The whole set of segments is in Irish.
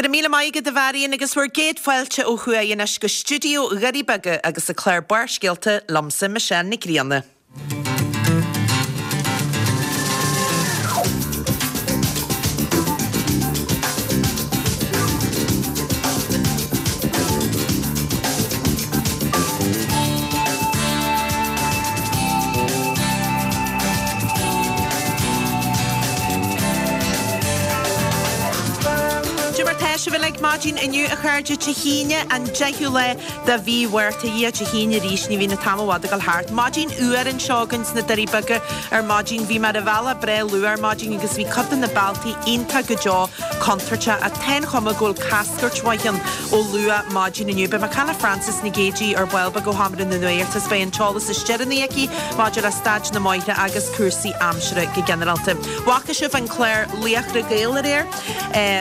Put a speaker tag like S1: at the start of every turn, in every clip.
S1: Go raibh míle maith agat a Mharion agus bhur gcéad fáilte ó thuaidh anois go stiúideo Dhoirí Beaga agus an clár Barrscéalta liomsa Michelle Nic Grianna. Cad é mar tá sibh uilig maidin inniu a chairde Dé hAoine an 10ú lá de mhí Mhárta. A Dhia, Dé hAoine arís, ní bhíonn an t-am i bhfad ag dul thart. Maidin fhuar anseo againn sna Doirí Beaga ar maidin. Bhí mé ar an bhealach breá luath ar maidin agus bhí cuid de na bealtaí iontach go deo contúirteach ach tá an chuma go bhfuil cascairt mhaith ann ó luath maidin inniu. Beidh mé ag caint le Frances Nic Géadaigh ar ball beag ó Sheomra na Nuachta is beidh an t-eolas is deireanaí aici maidir le staid na mbóithre agus cúrsaí aimsire go ginearálta. Bhfaca sibh an clár Laochra Gael aréir?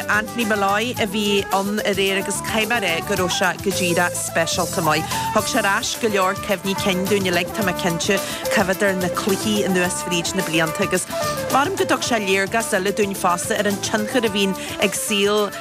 S1: Anthony Molloy a bhí ann aréir agus caithfidh mé a rá go raibh sé go díreach speisialta maith. Thug sé ar ais go leor cuimhní cinn dúinn uilig, tá mé cinnte, cuimhneamh ar na cluichí anuas fríd na blianta agus measaim go dtug sé léargas eile dúinn fosta ar an tionchar a bhíonn ag saol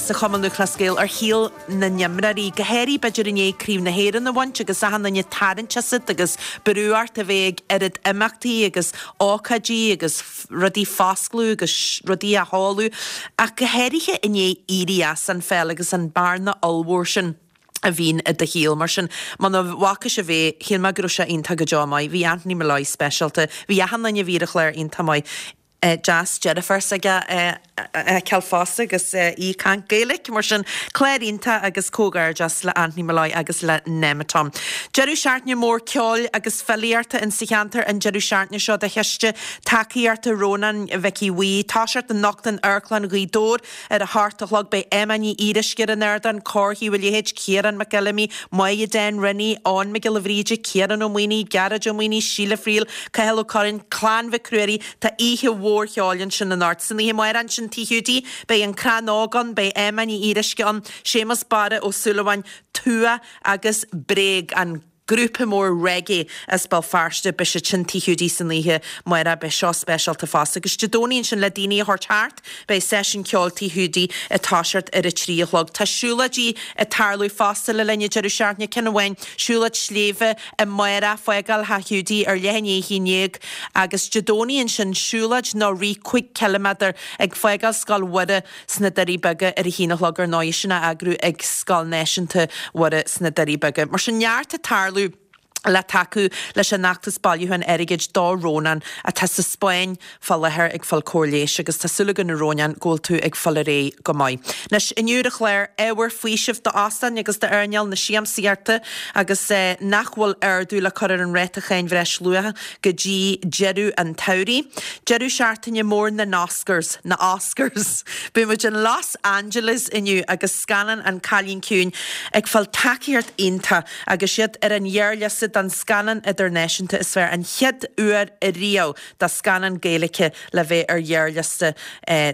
S1: sa Chumann Lúthchleas Gael ar shaol na n-imreoirí, go háirithe b'fhéidir i ndiaidh Craobh na hÉireann a bhaint agus achan duine ag tarraingt asat agus brú ort a bheith ag oiread imeachtaí agus ócáidí agus rudaí a foscladh agus rudaí a sheoladh ach go háirithe i ndiaidh éirí as an pheil agus an bearna ollmhór sin a bhíonn i do shaol. Mar sin, muna bhfaca sibh é, shíl mé go raibh sé iontach go deo maith. Bhí Anthony Molloy speisialta. Bhí achan duine a bhí ar an chlár iontach maith. Deas deirfiúr s'aige a fheiceáil fosta agus í ag caint Gaeilge. Mar sin, clár iontach agus comhghairdeas le Anthony Molloy agus le Nemeton. Deireadh seachtaine mór ceoil agus filíochta in sa cheantar an deireadh seachtaine seo do chiste tacaíochta Rónáin Mhicí Bhuí. Toiseacht anocht in Amharclann Ghaoth Dobhair ar a hocht a chlog. Beidh Emma Ní Fhíoruisce ar an ardán, Cór Thaobh an Leithéid, Ciarán Mac Fheilimí, Máire Dan Riney, Eoin Mac Giolla Bhríde, Ciarán Ó Maonaigh, Gearóid Ó Maonaigh, Síle Friel, Cathal Ó Curráin, Clann Mhic Ruairí, Tá oíche mhór cheoil ansin anocht. San oíche amárach ansin Tigh Hiúdaí, beidh An Crann Óg ann, beidh Emma Ní Fhíoruisce ann, Séamus Barra Ó Súilleabháin, Tua agus Bréag, an grúpa mór reggae as Béal Feirste, beidh siad sin Tigh Hiúdaí san oíche amárach, beidh seo speisialta fosta. Agus Dé Domhnaigh ansin le daoine a thabhairt thart, beidh seisiún ceoil Tigh Hiúdaí ag toiseacht ar a 3 a chlog. Tá siúlóidí ag tarlú fosta le linn an deireadh seachtaine, ceann amháin, siúlóid sléibhe amárach, fágáil Theach Hiúdaí ar leath i ndiaidh 11 agus Dé Domhnaigh ansin siúlóid nó rith 5 ciliméadar ag fágáil Scoil Mhuire sna Doirí Beaga ar a haon a chlog ar ndóigh, sin á eagrú ag Scoil Náisiúnta Mhuire sna Doirí Beaga. Mar sin neart ag tarlú le tacú leis an fheachtas bailiúcháin airgid do Rónán atá sa Spáinn fá láthair ag fáil cóir leighis agus tá súil againn a Rónáin go bhfuil tú ag fáil ar aghaidh go maith. Anois, inniu ar an chlár, ábhar faoisimh d'óstáin agus d'earnáil na siamsaíochta agus nach bhfuil ardú le cur ar an ráta cháin bhreisluacha go dtí deireadh an tsamhraidh. Deireadh seachtaine mór na nOscars, na Oscars! Beidh muid in Los Angeles inniu agus scannán An Cailín Ciúin ag fáil tacaíocht iontach agus iad ar an ghearrliosta don scannán idirnáisiúnta is fearr, an chéad uair ariamh do scannán Gaeilge le bheith ar ghearrliosta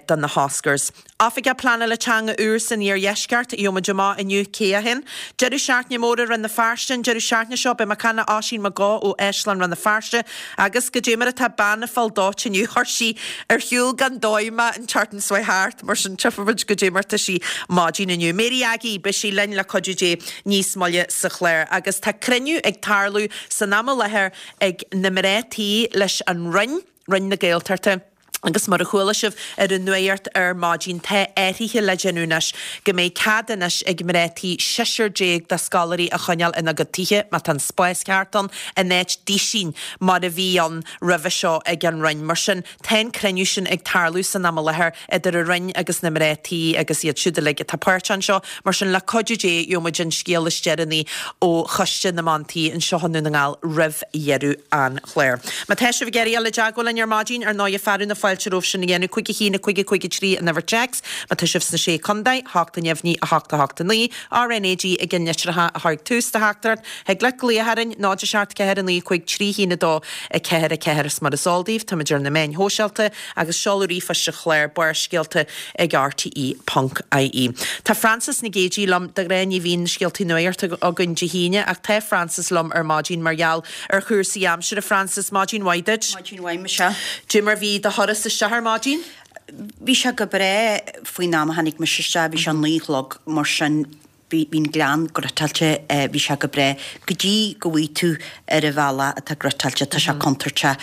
S1: do na hOscars. Oifigeach Pleanála Teanga úr san Iardheisceart, gheobhaidh muid amach inniu cé hé. Deireadh seachtaine mór i Rann na Feirste an deireadh seachtaine seo, beidh mé ag caint le Oisín Mac Gó ó Áislann Rann na Feirste agus goidé mar atá bean ag fáil dóite inniu, chuir sí ar shiúl gan dóigh mé an tseachtain seo thart, mar sin tchífidh muid goidé mar tá sí maidin inniu. Mary Aggie, beidh sí linn le cuidiú Dé níos moille sa chlár agus tá cruinniú ag tarlú san am i láthair ag na mná tí leis an Roinn, Roinn na Gaeltachta. Agus mar a chuala sibh ar an nuacht ar maidin, tá athruithe le déanamh anois go mbeidh cead anois ag mná tí seisear déag de scoláirí a choinneáil ina gcuid tithe, má tá an spás ceart ann, in áit duisín mar a bhí ann roimhe seo ag an Roinn. Mar sin, tá an cruinniú sin ag tarlú san am i láthair idir an Roinn agus na mná tí agus iad siúd uilig atá páirteach anseo. Mar sin, le cuidiú Dé, gheobhaidh muid an scéal is deireanaí ó Choiste na mBan Tí anseo i nDún na nGall roimh dheireadh an chláir. Má tá sibh ag iarraidh dul i dteagmháil linn ar maidin, ar ndóighe, fearadh na fáilte romhaibh sin a dhéanamh, 5 1 5 5 3 an uimhir téacs. Má tá sibh sna Sé Contae, 8 neamhní, 8 8 9, RNAG i gceann litreacha a chuirfidh tús do theachtaireacht. Thig leat glaoch orainn, 0 7 4 9 5 3 1 2 4 4 Is mar is eol daoibh, táimid ar na meáin shóisialta agus seoladh ríomhphoist an chláir, Barrscéalta ag rte ponc ie. Tá Frances Nic Géadaigh liom, de ghnáth ní bhíonn scéaltaí nuachta againn Dé hAoine ach tá Frances liom ar maidin mar gheall ar chúrsaí aimsire. Frances, maidin mhaith duit.
S2: Maidin mhaith, Michelle.
S1: Cad é mar bhí do thuras isteach ar maidin?
S2: bhí sé go breá faoin am a tháinig mise isteach, bhí sé a 9 a chlog mar sin bhí an gleann griotáilte, bhí sé go breá go dtí go bhfaighidh tú ar an bhealach atá griotáilte, tá sé contúirteach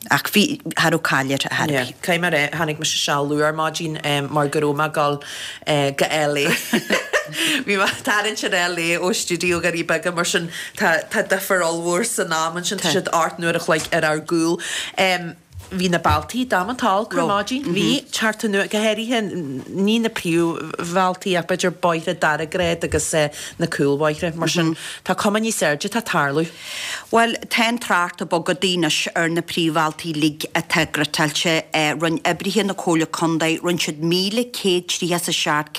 S2: ach bhí, cha raibh caill air ar chor ar
S1: bith. Caithfidh mé a rá, tháinig mise isteach luath ar maidin mar go raibh mé ag dul go LA. Bhí mé ag tarraingt ar LA ó stiúideo Dhoirí Beaga mar sin tá tá difear ollmhór san am ansin, tá siad 8 n-uair a chloig ar ár gcúl. Bhí na bealtaí damanta olc ar maidin. Bhí, teacht anuas, go háirithe, ní na príomhbhealtaí ach b'fhéidir bóithre dara grád agus na cúlbhóithre. Mar sin, tá cuma níos airde atá ag tarlú.
S2: Bhuel, tá an trácht ag bogadh anois ar na príomhbhealtaí uilig atá griotáilte. Rinne oibrithe na Comhairle Contae, rinne siad 1,137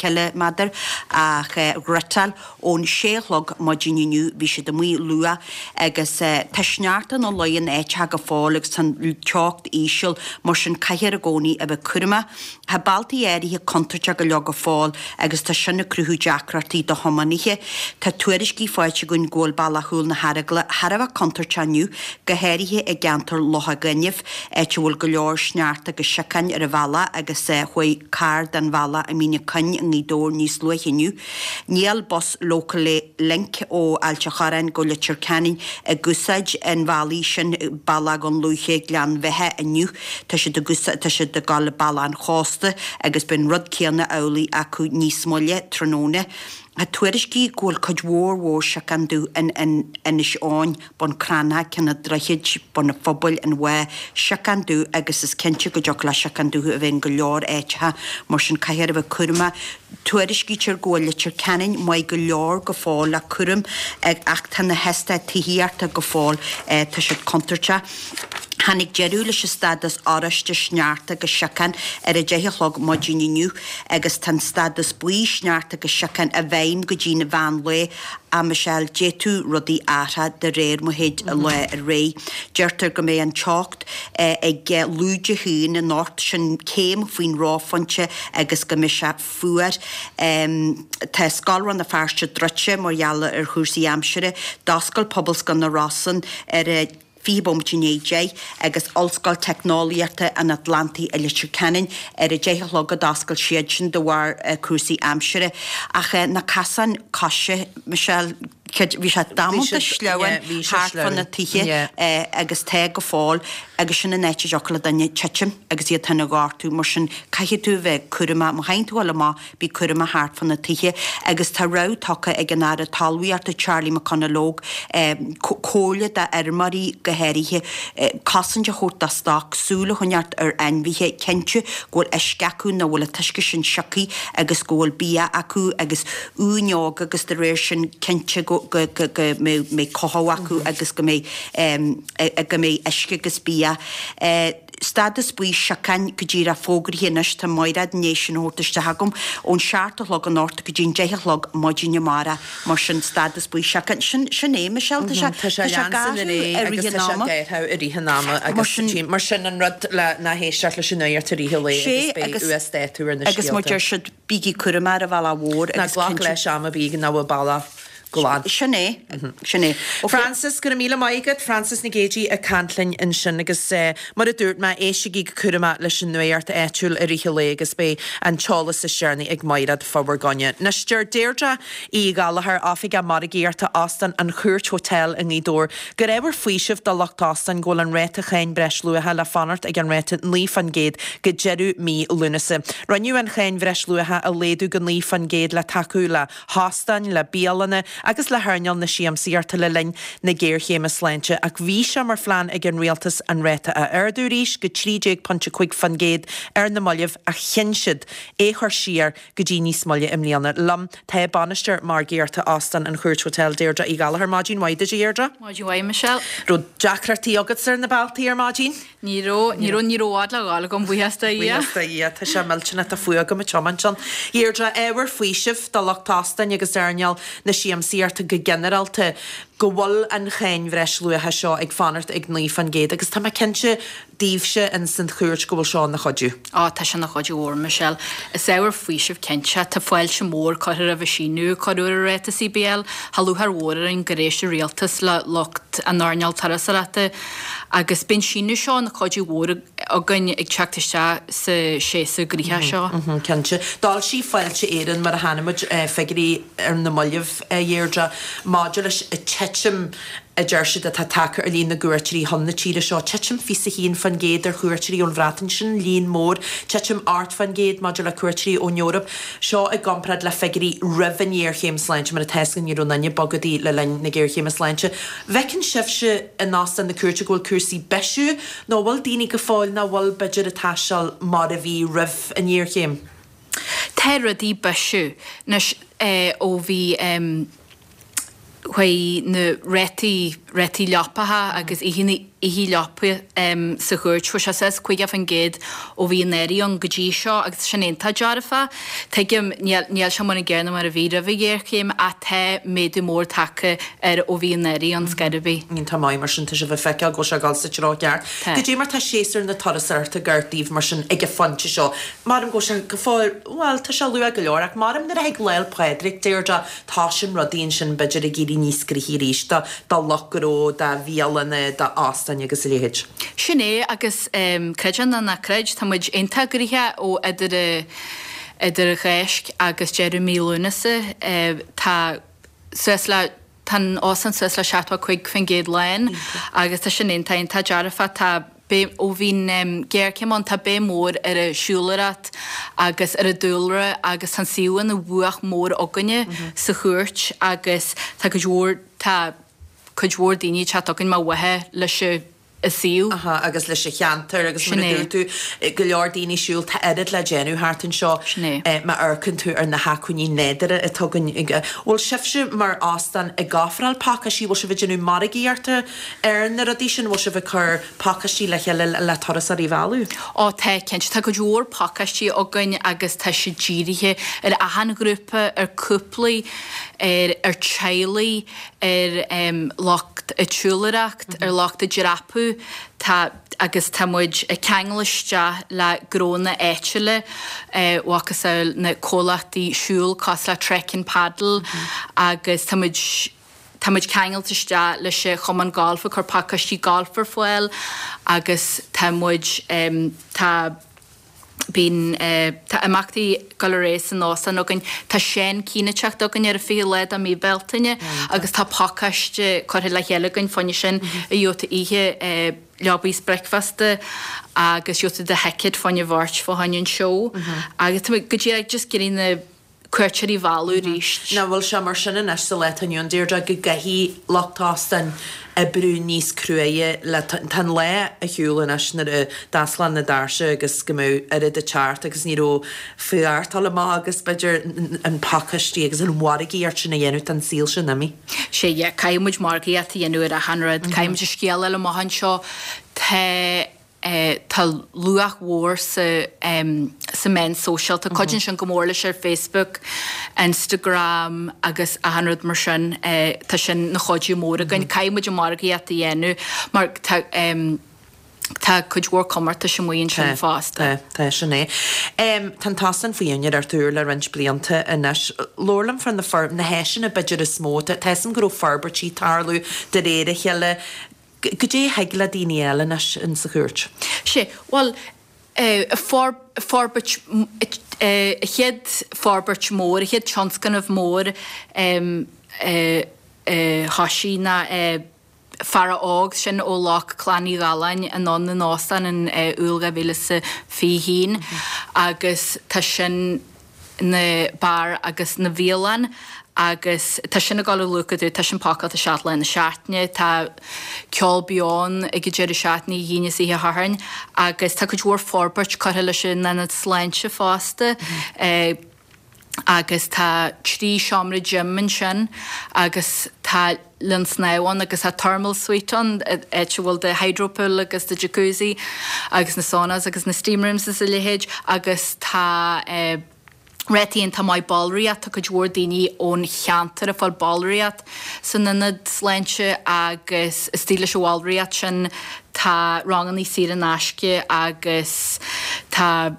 S2: ciliméadar a ghriotáil Ón sé a chlog maidin inniu bhí siad amuigh luath agus tá sneachta ina luí in áiteacha go fóill agus tá an teocht íseal, mar sin caithfear i gcónaí a bheith cúramach. Tá bealtaí áirithe contúirteach go leor go fóill agus tá sin ag cruthú deacrachtaí do thiománaithe. Tá tuairiscí faighte againn go bhfuil bealach Chúil na hEaragla thar a bheith contúirteach inniu, go háirithe i gceantar Locha Gainimh, áit a bhfuil go leor sneachta agus siocáin ar an bhealach agus chuaigh carr den bhealach i Mín an Choinn i nGaoth Dobhair níos luaithe inniu. Níl bus Local Link ó Ailt a' Chorráin go Leitir Ceanainn ag úsáid an bhealaigh sin, Bealach Dhún Lúiche, Gleann Bheatha, inniu. Tá siad ag úsáid, tá siad ag dul Bealach an Chósta agus beidh an rud céanna amhlaidh acu níos moille tráthnóna. Tá tuairiscí go bhfuil cuid mhór mhór siocán dubh in Inis Eoghain. Bun Cranncha, Ceann an Droichid, Bun an Phobail, an Mhá, siocán dubh agus is cinnte go dtiocfadh le siocán dubh a bheith in go leor áiteacha, mar sin caithfear a bheith cúramach. Tuairiscítear go bhfuil Leitir Ceanainn maith go leor go fóill le cúram ach tá na heastáit tithíochta go fóill, tá siad contúirteach. Tháinig deireadh leis an stádas oráiste sneachta agus siocán ar a 10 a chlog maidin inniu agus tá an stádas buí sneachta agus siocán i bhfeidhm go dtí'n mheán lae. A Michelle, d'fhéadfadh rudaí athrú de réir mar a théid an lá ar aghaidh. Deirtear go mbeidh an teocht ag lúide a haon anocht, sin céim faoin reophointe agus go mbeidh sé fuar. Tá Scoil Rann na Feirste druidte mar gheall ar chúrsaí aimsire. D'oscail Pobalscoil na Rosann ar a. 20 bomaite i ndiaidh 10, agus Ollscoil Teicneolaíochta an Atlantaigh i Leitir Ceanainn ar a 10 a chlog a d'oscail siad sin de bharr cúrsaí aimsire. Ach na casáin coise, Michelle, bhí sé damanta sleamhain thart fá na tithe agus tá go fóill agus sin an áit a dtiocfadh le duine titim agus iad féin a ghortú. Mar sin caithfidh tú a bheith cúramach má théann tú a ghoil amach Bí cúramach thart fá na tithe agus tá rabhadh tugtha ag an Aire Talmhaíochta Charlie McConalogue comhairle d'fheirmeoirí go háirithe cosaint a thabhairt dá stoc, súil a choinneáilt ar ainmhithe, cinntiú go bhfuil uisce acu nó go bhfuil an t-uisce sin sioctha agus go bhfuil bia acu agus uain óga agus de réir sin cinnte go mbeidh cothú acu agus go mbeidh go mbeidh uisce agus bia. Stádas buí siocáin go díreach fógraithe anois, tá Maighread i ndiaidh sin a thabhairt isteach agam, ón seacht a chlog anocht go dtí'n deich a chlog maidin amárach, mar sin stádas buí siocáin, sin, sin é Michelle, tá sé,
S1: Tá sé
S2: tá sé ag
S1: leanstan
S2: athrú
S1: ar aghaidh
S2: i
S1: agus
S2: rith an
S1: tá sé
S2: ama.
S1: ag athrú i rith an ama
S2: Mar
S1: agus
S2: sin,
S1: tím, mar sin an rud le ná héisteacht leis an nuacht i rith an lae
S2: sé
S1: agus beidh
S2: agus,
S1: uasdátú ar na
S2: agus mar
S1: scéalta.
S2: deir siad, bígí cúramach ar an bhealach mhór
S1: Ná
S2: agus
S1: glac
S2: cinnte,
S1: leis am ar bith nach bhfuil bealach glan.
S2: Sin é, sin é. Ok.
S1: Frances, Go raibh míle maith agat. Frances Nic Géadaigh ag caint linn ansin agus mar a dúirt mé, éistigí go cúramach leis an nuacht áitiúil i rith an lae agus beidh an t-eolas is deireanaí ag Maighread fá bhur gcoinne. Anois, deir Deirdre Uí Ghallchóir, Oifigeach Margaíochta Óstán an Chúirt Hotel i nGaoth Dobhair, gur ábhar faoisimh do lucht óstáin go bhfuil an ráta cháin bhreisluacha le fanacht ag an ráta 9% go deireadh mí Lúnasa. Rinneadh an cháin bhreisluacha a laghdú go 9% le tacú le hóstáin, le bialanna agus le hearnáil na siamsaíochta le linn na géarchéime sláinte ach bhí sé mar phlean ag an rialtas an ráta a ardú arís go 13.5% ar na mallaibh ach chinn siad é chur siar go dtí níos moille i mbliana. Liom tá Bainisteoir Margaíochta Óstán an Chúirt Hotel, Deirdre Uí Ghallchóir. Maidin mhaith duit a Dheirdre.
S3: Maidin mhaith Michelle.
S1: Raibh deacrachtaí agatsa ar na bealtaí ar maidin?
S3: Ní raibh, ní raibh, ní raibh i bhfad le ghabháil agam, buíochas do Dhia.
S1: Buíochas do Dhia, tá sé millteanach, tá fuath agam ag tiomáint ann. Deirdre, ábhar faoisimh do lucht óstáin agus earnáil na siamsaíochta. siamsaíochta go ginearálta, go bhfuil an cháin bhreisluacha seo ag fanacht ag 9% agus tá mé cinnte daoibhse ins an Chúirt go bhfuil seo ina chuidiú.
S3: Á, tá sé ina chuidiú mhór, Michelle. Is ábhar faoisimh cinnte. Tá fáilte mhór curtha roimh an síneadh a cuireadh ar an ráta CBL. Tá lúcháir mhór orainn gur éist an Rialtas le lucht an earnáil turasóireachta agus beidh an síneadh seo ina chuidiú mhór againn ag teacht isteach sa séasúr gnoitheach seo.
S1: Cinnte. D'fhoilsigh Fáilte Éireann, mar a chonaic muid, figiúirí ar na mallaibh, a Dheirdre, maidir leis an titim a deir siad atá tagtha ar líon na gcuairteoirí chun na tíre seo, titim 21% ar chuairteoirí ón Bhreatain, sin líon mór, titim 8% maidir le cuairteoirí ón Eoraip, seo i gcomparáid le figiúirí roimh an ngéarchéim sláinte, mar atá a fhios againn ní raibh aon duine ag bogadh le linn na géarchéime sláinte. Bhfeiceann sibhse in Óstán na Cúirte go bhfuil cúrsaí ag bisiú nó an bhfuil daoine go fóill nach bhfuil b'fhéidir ag taisteal mar a bhí roimh an ngéarchéim?
S3: Tá rudaí ag bisiú anois ó bhí chuaigh na rátaí, rátaí leapacha agus oícheanna leapa sa chúirt, chuaigh sé suas 50% ó bhí an earraigh ann go dtí seo agus sin iontach dearfach. Tuigim, níl, níl sé mar an gcéanna mar a bhí roimh an ghéarchéim ach tá méadú mór tagtha air ó bhí an earraigh ann scor ar bith.
S1: Iontach maith mar sin, tá sibh ag feiceáil go bhfuil sé ag dul sa treo ceart.
S3: Tá.
S1: Goidé mar tá séasúr na turasóireachta ag amharc daoibh mar sin ag an phointe seo? Maram go bhfuil sé go fóill, bhuel, tá sé luath go leor ach maram nuair a thig Lá 'le Pádraig, Deirdre, toisíonn rudaí ansin b'fhéidir ag éirí níos gnoithí arís do do lucht gnó, do bhialanna, d'óstáin agus a leithéid.
S3: Sin é agus creid é nó ná creid, tá muid iontach gnoitheach ó idir idir an Cháisc agus deireadh mí Lúnasa. Tá suas le Tá an óstán suas le 75% lán agus tá sin iontach, iontach dearfach. Tá béim, ó bhí an ghéarchéim ann, tá béim mhór ar an siúlóireacht agus ar an dúlra agus tá an suíomh ina bhuach mór againne sa chúirt agus tá cuid mhór, tá cuid mhór daoine ag teacht chugainn mar mhaithe leis an a suíomh.
S1: Aha, agus leis an cheantar agus
S3: Sin
S1: mar a
S3: é.
S1: dúirt tú, go leor daoine ag siúl, tá oiread le déanamh thart anseo.
S3: Sin é.
S1: Má amharcann tú ar na hacmhainní nádúrtha atá againn. Bhfuil sibhse mar óstán ag ofráil pacáistí, bhfuil sibh ag déanamh margaíochta ar na rudaí sin, bhfuil sibh ag cur pacáistí le chéile le turasóirí a mhealladh?
S3: Ó tá, cinnte. Tá cuid mhór pacáistí againn agus tá siad dírithe ar achan ghrúpa, ar cúplaí, ar ar teaghlaigh, ar lucht ag siúlóireacht, ar lucht ag dreapadh, tá agus tá muid ag ceangal isteach le gnónna áitiúla, macasamhail na comhlachtaí siúil cosúil le Trek and Paddle agus tá muid tá muid ceangailte isteach leis an Chumann Gailf ag cur pacáistí gailf ar fáil agus tá muid tá. Bíonn, tá imeachtaí ag dul ar aghaidh san óstán againn. Tá Seán Keane ag teacht chugainn ar an 20 lá de mí Bealtaine agus tá pacáiste curtha le chéile againn fá choinne sin a gheobhaidh tú oíche leabaidh is bricfeasta agus gheobhaidh tú do thicéad fá choinne bheirt fá choinne an seó agus tá muid go díreach just ag iarraidh na cuairteoirí a mhealladh arís.
S1: Nach bhfuil sé mar sin anois sa lá atá inniu ann, Deirdre, go gcaithfidh lucht óstáin oibriú níos cruaidhe le, tá an lá ar shiúl anois nuair a d'osclódh na doirse agus go mbeadh oiread ag teacht agus ní raibh fear dul amach agus b'fhéidir an pacáistí agus an mhargaíocht sin a dhéanamh, tá an saol sin imithe.
S3: Sea, yeah, caithfidh muid margaíocht a dhéanamh ar achan rud, caithfidh muid an scéal a fháil amach anseo, tá. Tá luach mhór sa sa meán sóisialta. Cuidíonn sin go mór leis ar Facebook, Instagram agus achan rud mar sin. Tá sin 'na chuidiú mór againn. Caithfidh muid an margaíocht a dhéanamh mar tá tá cuid mhór comórtais amuigh ansin fosta.
S1: Tá, tá, sin é. Tá an t-óstán faoi úinéireacht úr le roinnt blianta anois. Labhair liom fá na na háiseanna b'fhéidir is mó. Tá a fhios agam go raibh forbairtí ag tarlú de réir a chéile. Goidé a thig le daoine a fháil anois in sa chúirt?
S3: Sea, bhuel, forbairt, an chéad forbairt mór, an chéad tionscnamh mór a thoisigh ná Feara Óg, sin ó ghlac Clann Uí Dhalláin anonn an óstán in Iúil 2021 agus tá sin, 'na beár agus 'na bhialann agus tá sin ag dul ó luath go dlúth, tá sin pacáilte 7 lá na seachtaine, tá ceol beo ann ag an deireadh seachtaine, oíche Aoine is oíche Shathairn agus tá cuid mhór forbairt curtha leis an ionad sláinte fosta agus tá 3 seomra gym ansin agus tá linn snámh ann agus tá thermal suite ann, áit a bhfuil do hydropool agus do jacuzzi agus na saunas agus na steam rooms is a leithéid agus tá eh. Ráta iontach maith ballraíocht, tá cuid mhór daoine ón cheantar ag fáil ballraíocht san ionad sláinte agus istigh leis an bhallraíocht sin tá rangannaí saor in aisce agus tá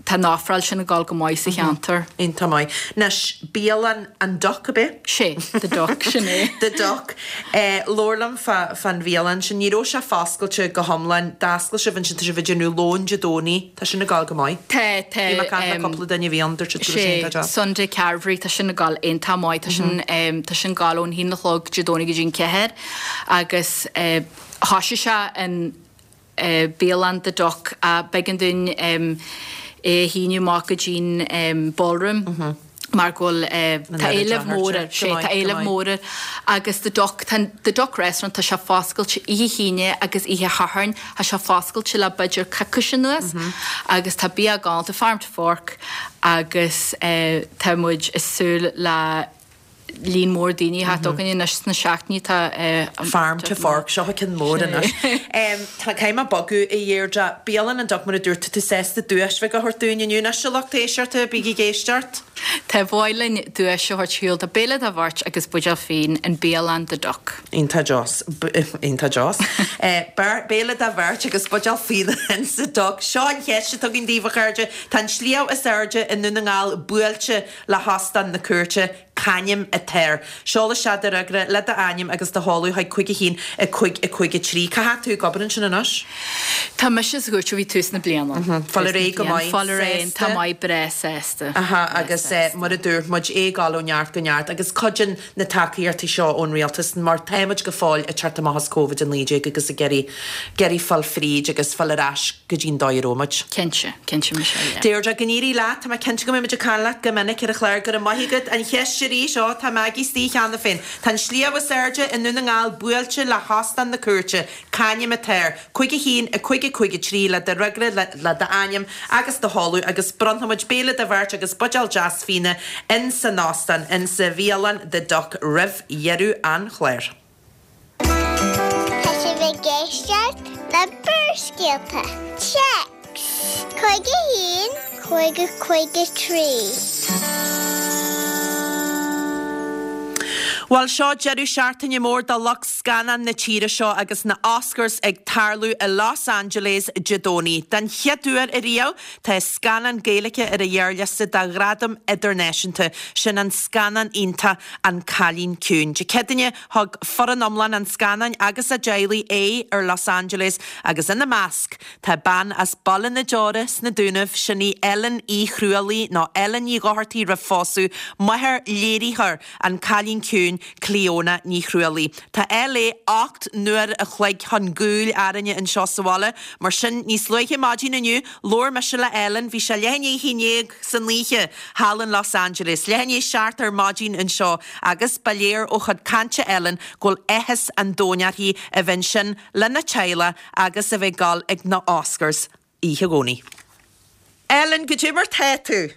S3: tá an ofráil sin ag dul go maith sa cheantar.
S1: Iontach maith. Anois, bialann an Duck, ab é?
S3: Sé, The Duck, sin é.
S1: The Duck. Labhair liom fá fán bhialann sin. Ní raibh sé foscailte go hiomlán. D'oscail sibh ansin, tá sibh ag déanamh lón Dé Domhnaigh. Tá sin ag gabháil go maith.
S3: Tá, tá.
S1: Bhí mé ag caint le cúpla duine a bhí ann, dúirt siad go raibh sé iontach
S3: deas. Sé, Sunday Carvery, tá sin ag gabháil iontach maith. Tá sin, tá sin ag gabháil ón haon a chlog Dé Domhnaigh go dtí an ceathair agus thoisigh sé an bialann The Duck ach b'éigean dúinn é a shíneadh amach go dtí'n ballroom. mar go bhfuil, tá éileamh mór air, sé, tá éileamh mór air agus The Duck, tá The Duck Restaurant, tá sé foscailte oíche hAoine agus oíche Shathairn, tá sé foscailte le b'fhéidir coicís anuas agus tá bia galánta, farm to fork agus tá muid ag súil le líon mór daoine a theacht chugainn anois sna seachtainí atá
S1: Farm to fork, seo ceann mór anois. Tá, caithfidh mé bogadh a Dheirdre. Bialann an Duck mar a dúirt tú, tá tú sásta duais bheag a thabhairt dúinn inniu. Anois a lucht éisteachta, bígí ag éisteacht.
S3: Tá, ba mhaith linn duais a thabhairt ar shiúl do béile do bheirt agus buidéal fíon in Bialann The Duck.
S1: Iontach deas. Iontach deas. Béile do bheirt agus buidéal fíona in sa Duck. Seo an cheist atá againn daoibh a chairde. Tá an sliabh is airde i nDún na nGall buailte le hOstán na Cúirte. C'ainm atá air? Seol isteach do fhreagra le d'ainm agus do sheoladh chuig 5 1 5 5 3. Cá fhad tú ag obair ansin anois?
S3: Tá mise sa chúirt ó bhí tús na bliana.
S1: Fáil ar aghaidh go maith,
S3: Fáil ar aghaidh, tá maith, breá sásta.
S1: Aha, agus mar a dúirt muid, é ag dul ó neart go neart agus cuidíonn na tacaíochtaí seo ón rialtas mar táimid go fóill ag teacht amach as Covid-19 agus ag iarraidh iarraidh fáil fríd agus fáil ar ais go dtí'n dóigh a raibh muid.
S3: Cinnte, cinnte Michelle, yeah.
S1: Deirdre, go n-éirí leat, tá mé cinnte go mbeidh muid ag caint leat go minic ar an chlár, go raibh maith agat. An cheist arís, ó, tá Maggie istigh cheana féin. Tá an sliabh is airde i nDún na nGall buailte le hOstán na Cúirte, c'ainm atá air? 5 1 5 5 3 le do fhreagra, le le d'ainm agus do sheoladh agus bronnfaidh muid béile do bheirt agus buidéal deas fíona in san óstán, in sa bhialann The Duck roimh dheireadh an chláir.
S4: Tá sibh ag éisteacht le Barrscéalta. Téacs 5 1 5 5 3.
S1: Bhuel, seo deireadh seachtaine mór do lucht scannán na tíre seo agus na Oscars ag tarlú i Los Angeles Dé Domhnaigh. Den chéad uair ariamh, tá scannán Gaeilge ar an ghearrliosta do ghradam idirnáisiúnta, sin an scannán iontach An Cailín Ciúin. Dé Céadaoine, Thug foireann iomlán an scannáin agus a dteaghlaigh aghaidh ar Los Angeles agus ina measc tá bean as Baile na Deora sna Dúnaibh, sin í Ellen Uí Chrualaoi, nó Ellen Ní Dhochartaigh roimh phósadh, máthair léiritheoir An Cailín Ciúin, Clíona Ní Chrualaoi. Tá LA 8 n-uair a chloig chun gcúil orainne anseo sa bhaile, mar sin níos luaithe maidin inniu labhair mise le Ellen, bhí sé leath i ndiaidh a haon dhéag san oíche thall in Los Angeles, leath i ndiaidh 7 ar maidin anseo agus ba léir ó chuid cainte Ellen go bhfuil áthas an domhain uirthi a bheith ansin lena teaghlach agus a bheith ag dul ag na Oscars oíche Dhomhnaigh. Ellen, goidé mar tá tú?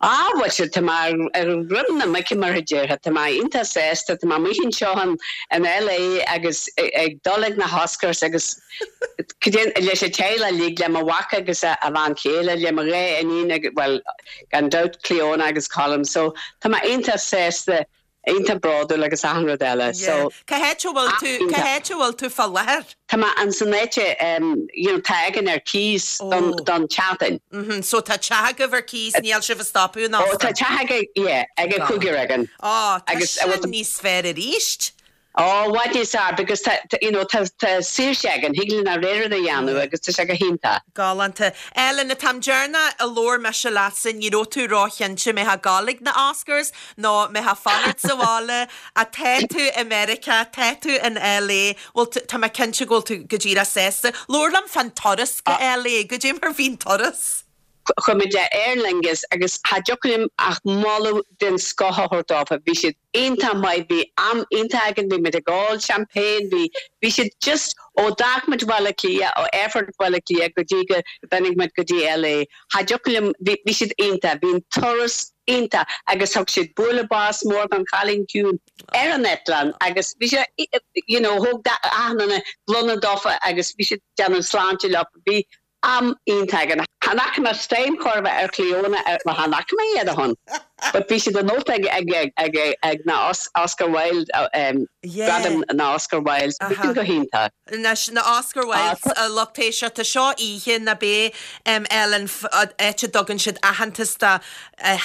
S5: Á, bhuel, tá mé ar dhroim na muice mar a déarfá, tá mé iontach sásta, tá mé amuigh anseo in LA agus ag dul ag na hOscars agus leis an teaghlach uilig, le mo mhac agus a bhean chéile, le mo dhá iníon agus, bhuel, gan dabht Clíona agus Colm, so tá mé iontach sásta iontach bródúil agus achan rud eile so.
S1: Cá háit a bhfuil tú, cá háit a bhfuil tú fá láthair?
S5: Tá mé in san áit you know tá againn ar cíos don don tseachtain.
S1: Mhm, so tá teach agaibh ar cíos, níl sibh ag stopadh in
S5: Ó tá teach ag yeah ag an cúigear againn.
S1: Ó, tá sin níos fearr aríst.
S5: Ó, i bhfad níos fearr because tá you know tá tá saoirse againn, thig linn ár rogha rud a dhéanamh agus tá sé go hiontach.
S1: Galánta. Ellen, an t-am deireanach a labhair mise leatsa ní raibh tú róchinnte an mbeifeá ag gabháil ag na Oscars nó an mbeifeá ag fanacht sa bhaile, ach tá tú i Meiriceá, tá tú in LA, bhfuil tú, tá mé cinnte go bhfuil tú go díreach sásta. Labhair liom fán turas go LA, goidé mar bhí an turas?
S5: Chuaigh muid le Aer Lingus agus cha dtiocfadh liom ach moladh den scoth a thabhairt dófa. Bhí siad iontach maith, bhí am iontach againn, bhí muid ag ól champagne, bhí, bhí siad just, ó d'fhág muid Baile Átha Cliath, ó aerfort Bhaile Átha Cliath go dtí go dtáinig muid go dtí LA, cha dtiocfadh liom, bhí, bhí siad iontach, bhí an turas iontach agus thug siad bualadh bos mór don Chailín Ciúin ar an eitleán agus bhí sé, you know, thóg achan duine gloine dófa agus bhí siad ag déanamh sláinte leo, bhí. am iontach againn. Chan fhaca mé stone chor ar bith ar Chlíona, bhuel chan fhaca mé iad ó shin, but bhí siad anocht ag ag ag ag na Oscar Wilde, gradaim na Oscar Wilde, bhí sin go hiontach.
S1: Anois, na Oscar Wildes, a lucht éisteachta, seo oíche ná beidh Ellen, áit a dtugann siad aitheantas do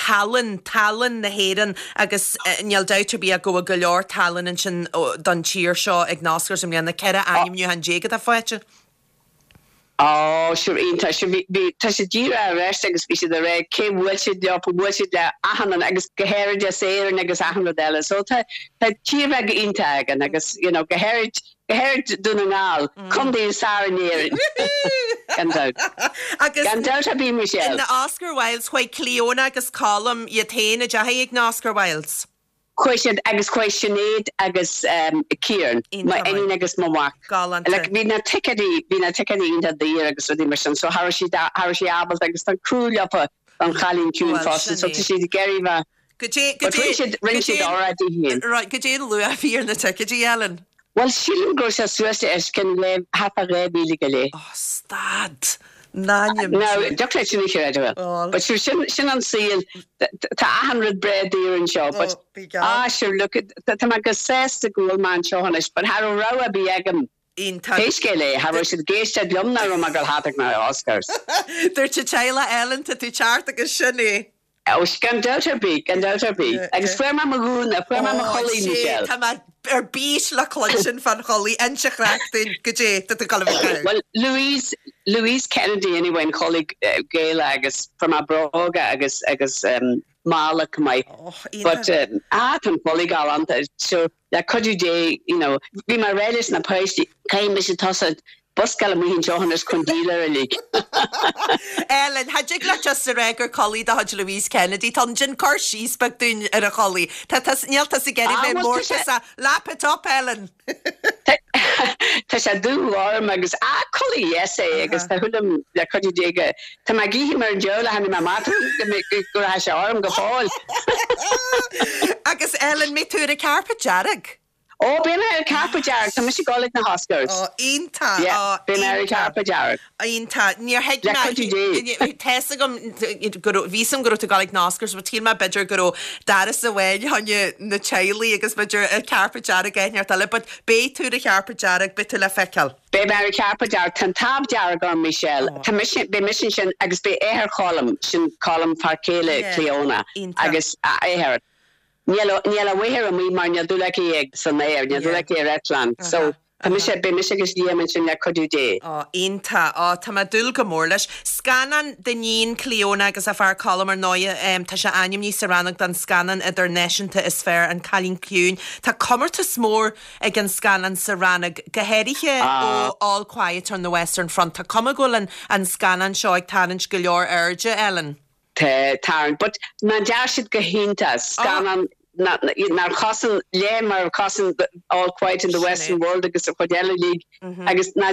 S1: thallann, tallann na hÉireann agus níl dabht ar bith ach go bhfuil go leor tallann ansin don tír seo ag na Oscars i mbliana, 14 ainmniúchán atá faighte.
S5: Ó, sure, iontach, sure, bhí, bhí, tá siad díreach ar ais agus bhí siad ag rá cé bhuail siad leo, bhuail siad le achan duine agus go háirid as Éirinn agus achan rud eile. So tá, tá tír bheag iontach againn agus, you know, go háirid, go háirid Dún na nGall, contae is fearr in Éirinn. Gan dabht.
S1: Agus
S5: Gan dabht ar bith, Michelle.
S1: na Oscar Wildes, chuaigh Clíona agus Colm iad féin, an ndeachaigh ag na Oscar Wildes?
S5: Chuaigh siad agus chuaigh Sinéad agus Ciarán, mo iníon agus mo mhac.
S1: Galánta.
S5: Like bhí na ticéidí, bhí na ticéidí iontach daor agus rudaí mar sin so cha raibh siad, cha raibh sé ábalta agus tá crú leofa don chailín ciúin
S1: Bhuel,
S5: fosta
S1: sin
S5: so
S1: é.
S5: tá siad ag iarraidh bheith
S1: Goidé,
S5: But
S1: goidé,
S5: rinne siad, rinne
S1: goidé
S5: siad óráid di féin.
S1: right, goidé an luach a bhí ar na ticéidí, Ellen?
S5: Bhuel sílim go raibh sé suas le os cionn dhá, thart fá 2,000 go leith.
S1: Oh, stad! N'ainm
S5: Now,
S1: Dé.
S5: dtiocfadh leat sin a chreidiúint.
S1: Bhuel.
S5: But sure, sin, sin an saol. Tá achan rud breá daor anseo, but,
S1: Oh, bí geall.
S5: ah, sure, look, tá mé go sásta go bhfuil mé anseo anois, but cha raibh rogha ar bith agam.
S1: Iontach.
S5: Pé scéal é, cha raibh siad ag éisteacht liom nach raibh mé ag dul thart ag na Oscars.
S1: Dúirt an teaghlach, Ellen, tá tú ceart agus sin é.
S5: Ó, gan dabht ar bith, gan dabht ar bith. Agus fuair mé mo ghúna, fuair mé mo
S1: Ó,
S5: chulaith,
S1: sé,
S5: Michelle.
S1: tá mé ar bís le cluinstin fán chulaith, inis an chraic dúinn, goidé tá tú ag dul a bheith ag caitheamh.
S5: Bhuel, Louise, Louise Kennedy anyway, an chulaith Gaelach agus fuair mé bróga agus, agus mála chomh maith.
S1: Ó, iontach.
S5: But, ah, tá an chulaith galánta. So, Le cuidiú Dé, you know, bhí mé ag rá leis na páistí, caithfidh mise tosú buscáil amuigh anseo anois chun díol air uilig.
S1: Ellen, cha dtig leat just a rá gur culaith de chuid Louise Kennedy atá ann, déan cur síos beag dúinn ar an chulaith. Tá tá níl tusa ag iarraidh
S5: Ah,
S1: bheith
S5: bhuel, tá sé,
S1: mórtasach. Lap it up, Ellen!
S5: Tá sé dúghorm agus, ah, culaith dheas é agus tá súil agam le cuidiú Dé go, tá mé ag ithe mar an diabhal a tháinig mé amach go go rachaidh sé orm go fóill.
S1: Agus Ellen, mbeidh tú ar an carpet dearg?
S5: Ó, beidh mé ar an carpet dearg, tá mise ag dul ag na hOscars.
S1: Ó, iontach,
S5: Yeah,
S1: ó,
S5: beidh mé ar an
S1: iontach.
S5: carpet dearg.
S1: Iontach. Níor thuig
S5: Le
S1: mé,
S5: cuidiú Dé.
S1: tá fhios agam go raibh, bhí fhios agam go raibh tú ag dul ag na Oscars but shíl mé b'fhéidir go raibh doras amháin fá choinne na teaghlaigh agus b'fhéidir an carpet dearg áit inteacht eile but beidh tú ar an charpet dearg, beidh tú le feiceáil.
S5: Beidh mé ar an charpet dearg, tá an táb dearg orm Michelle, tá mise, beidh mise ansin agus beidh athair Cholm, sin Colm fear céile
S1: Yeah,
S5: Clíona
S1: iontach.
S5: agus a athair. Níl, níl a mháthair amuigh mar níl dúil aici ag, san aer, níl dúil
S1: Yeah.
S5: aici ar eitleán. So,
S1: Uh-huh.
S5: tá mise, beidh mise agus Liam ansin le cuidiú Dé.
S1: Ó, iontach. Ó, tá mé ag dúil go mór leis. Scannán d'iníon Clíona agus a fear Colm ar ndóighe, tá sé ainmnithe sa rannóg don scannán idirnáisiúnta is fearr, An Cailín Ciúin. Tá comórtas mór ag an scannán sa rannóg, go háirithe ó All Quiet on the Western Front. Tá cuma go bhfuil an an scannán seo ag tarraingt go leor airde, Ellen.
S5: Tá, tarraingt. But ná dear siad go hiontach. Scannán nár chosain leath mar a chosain All Quiet in the Western World agus an chuid eile uilig agus ná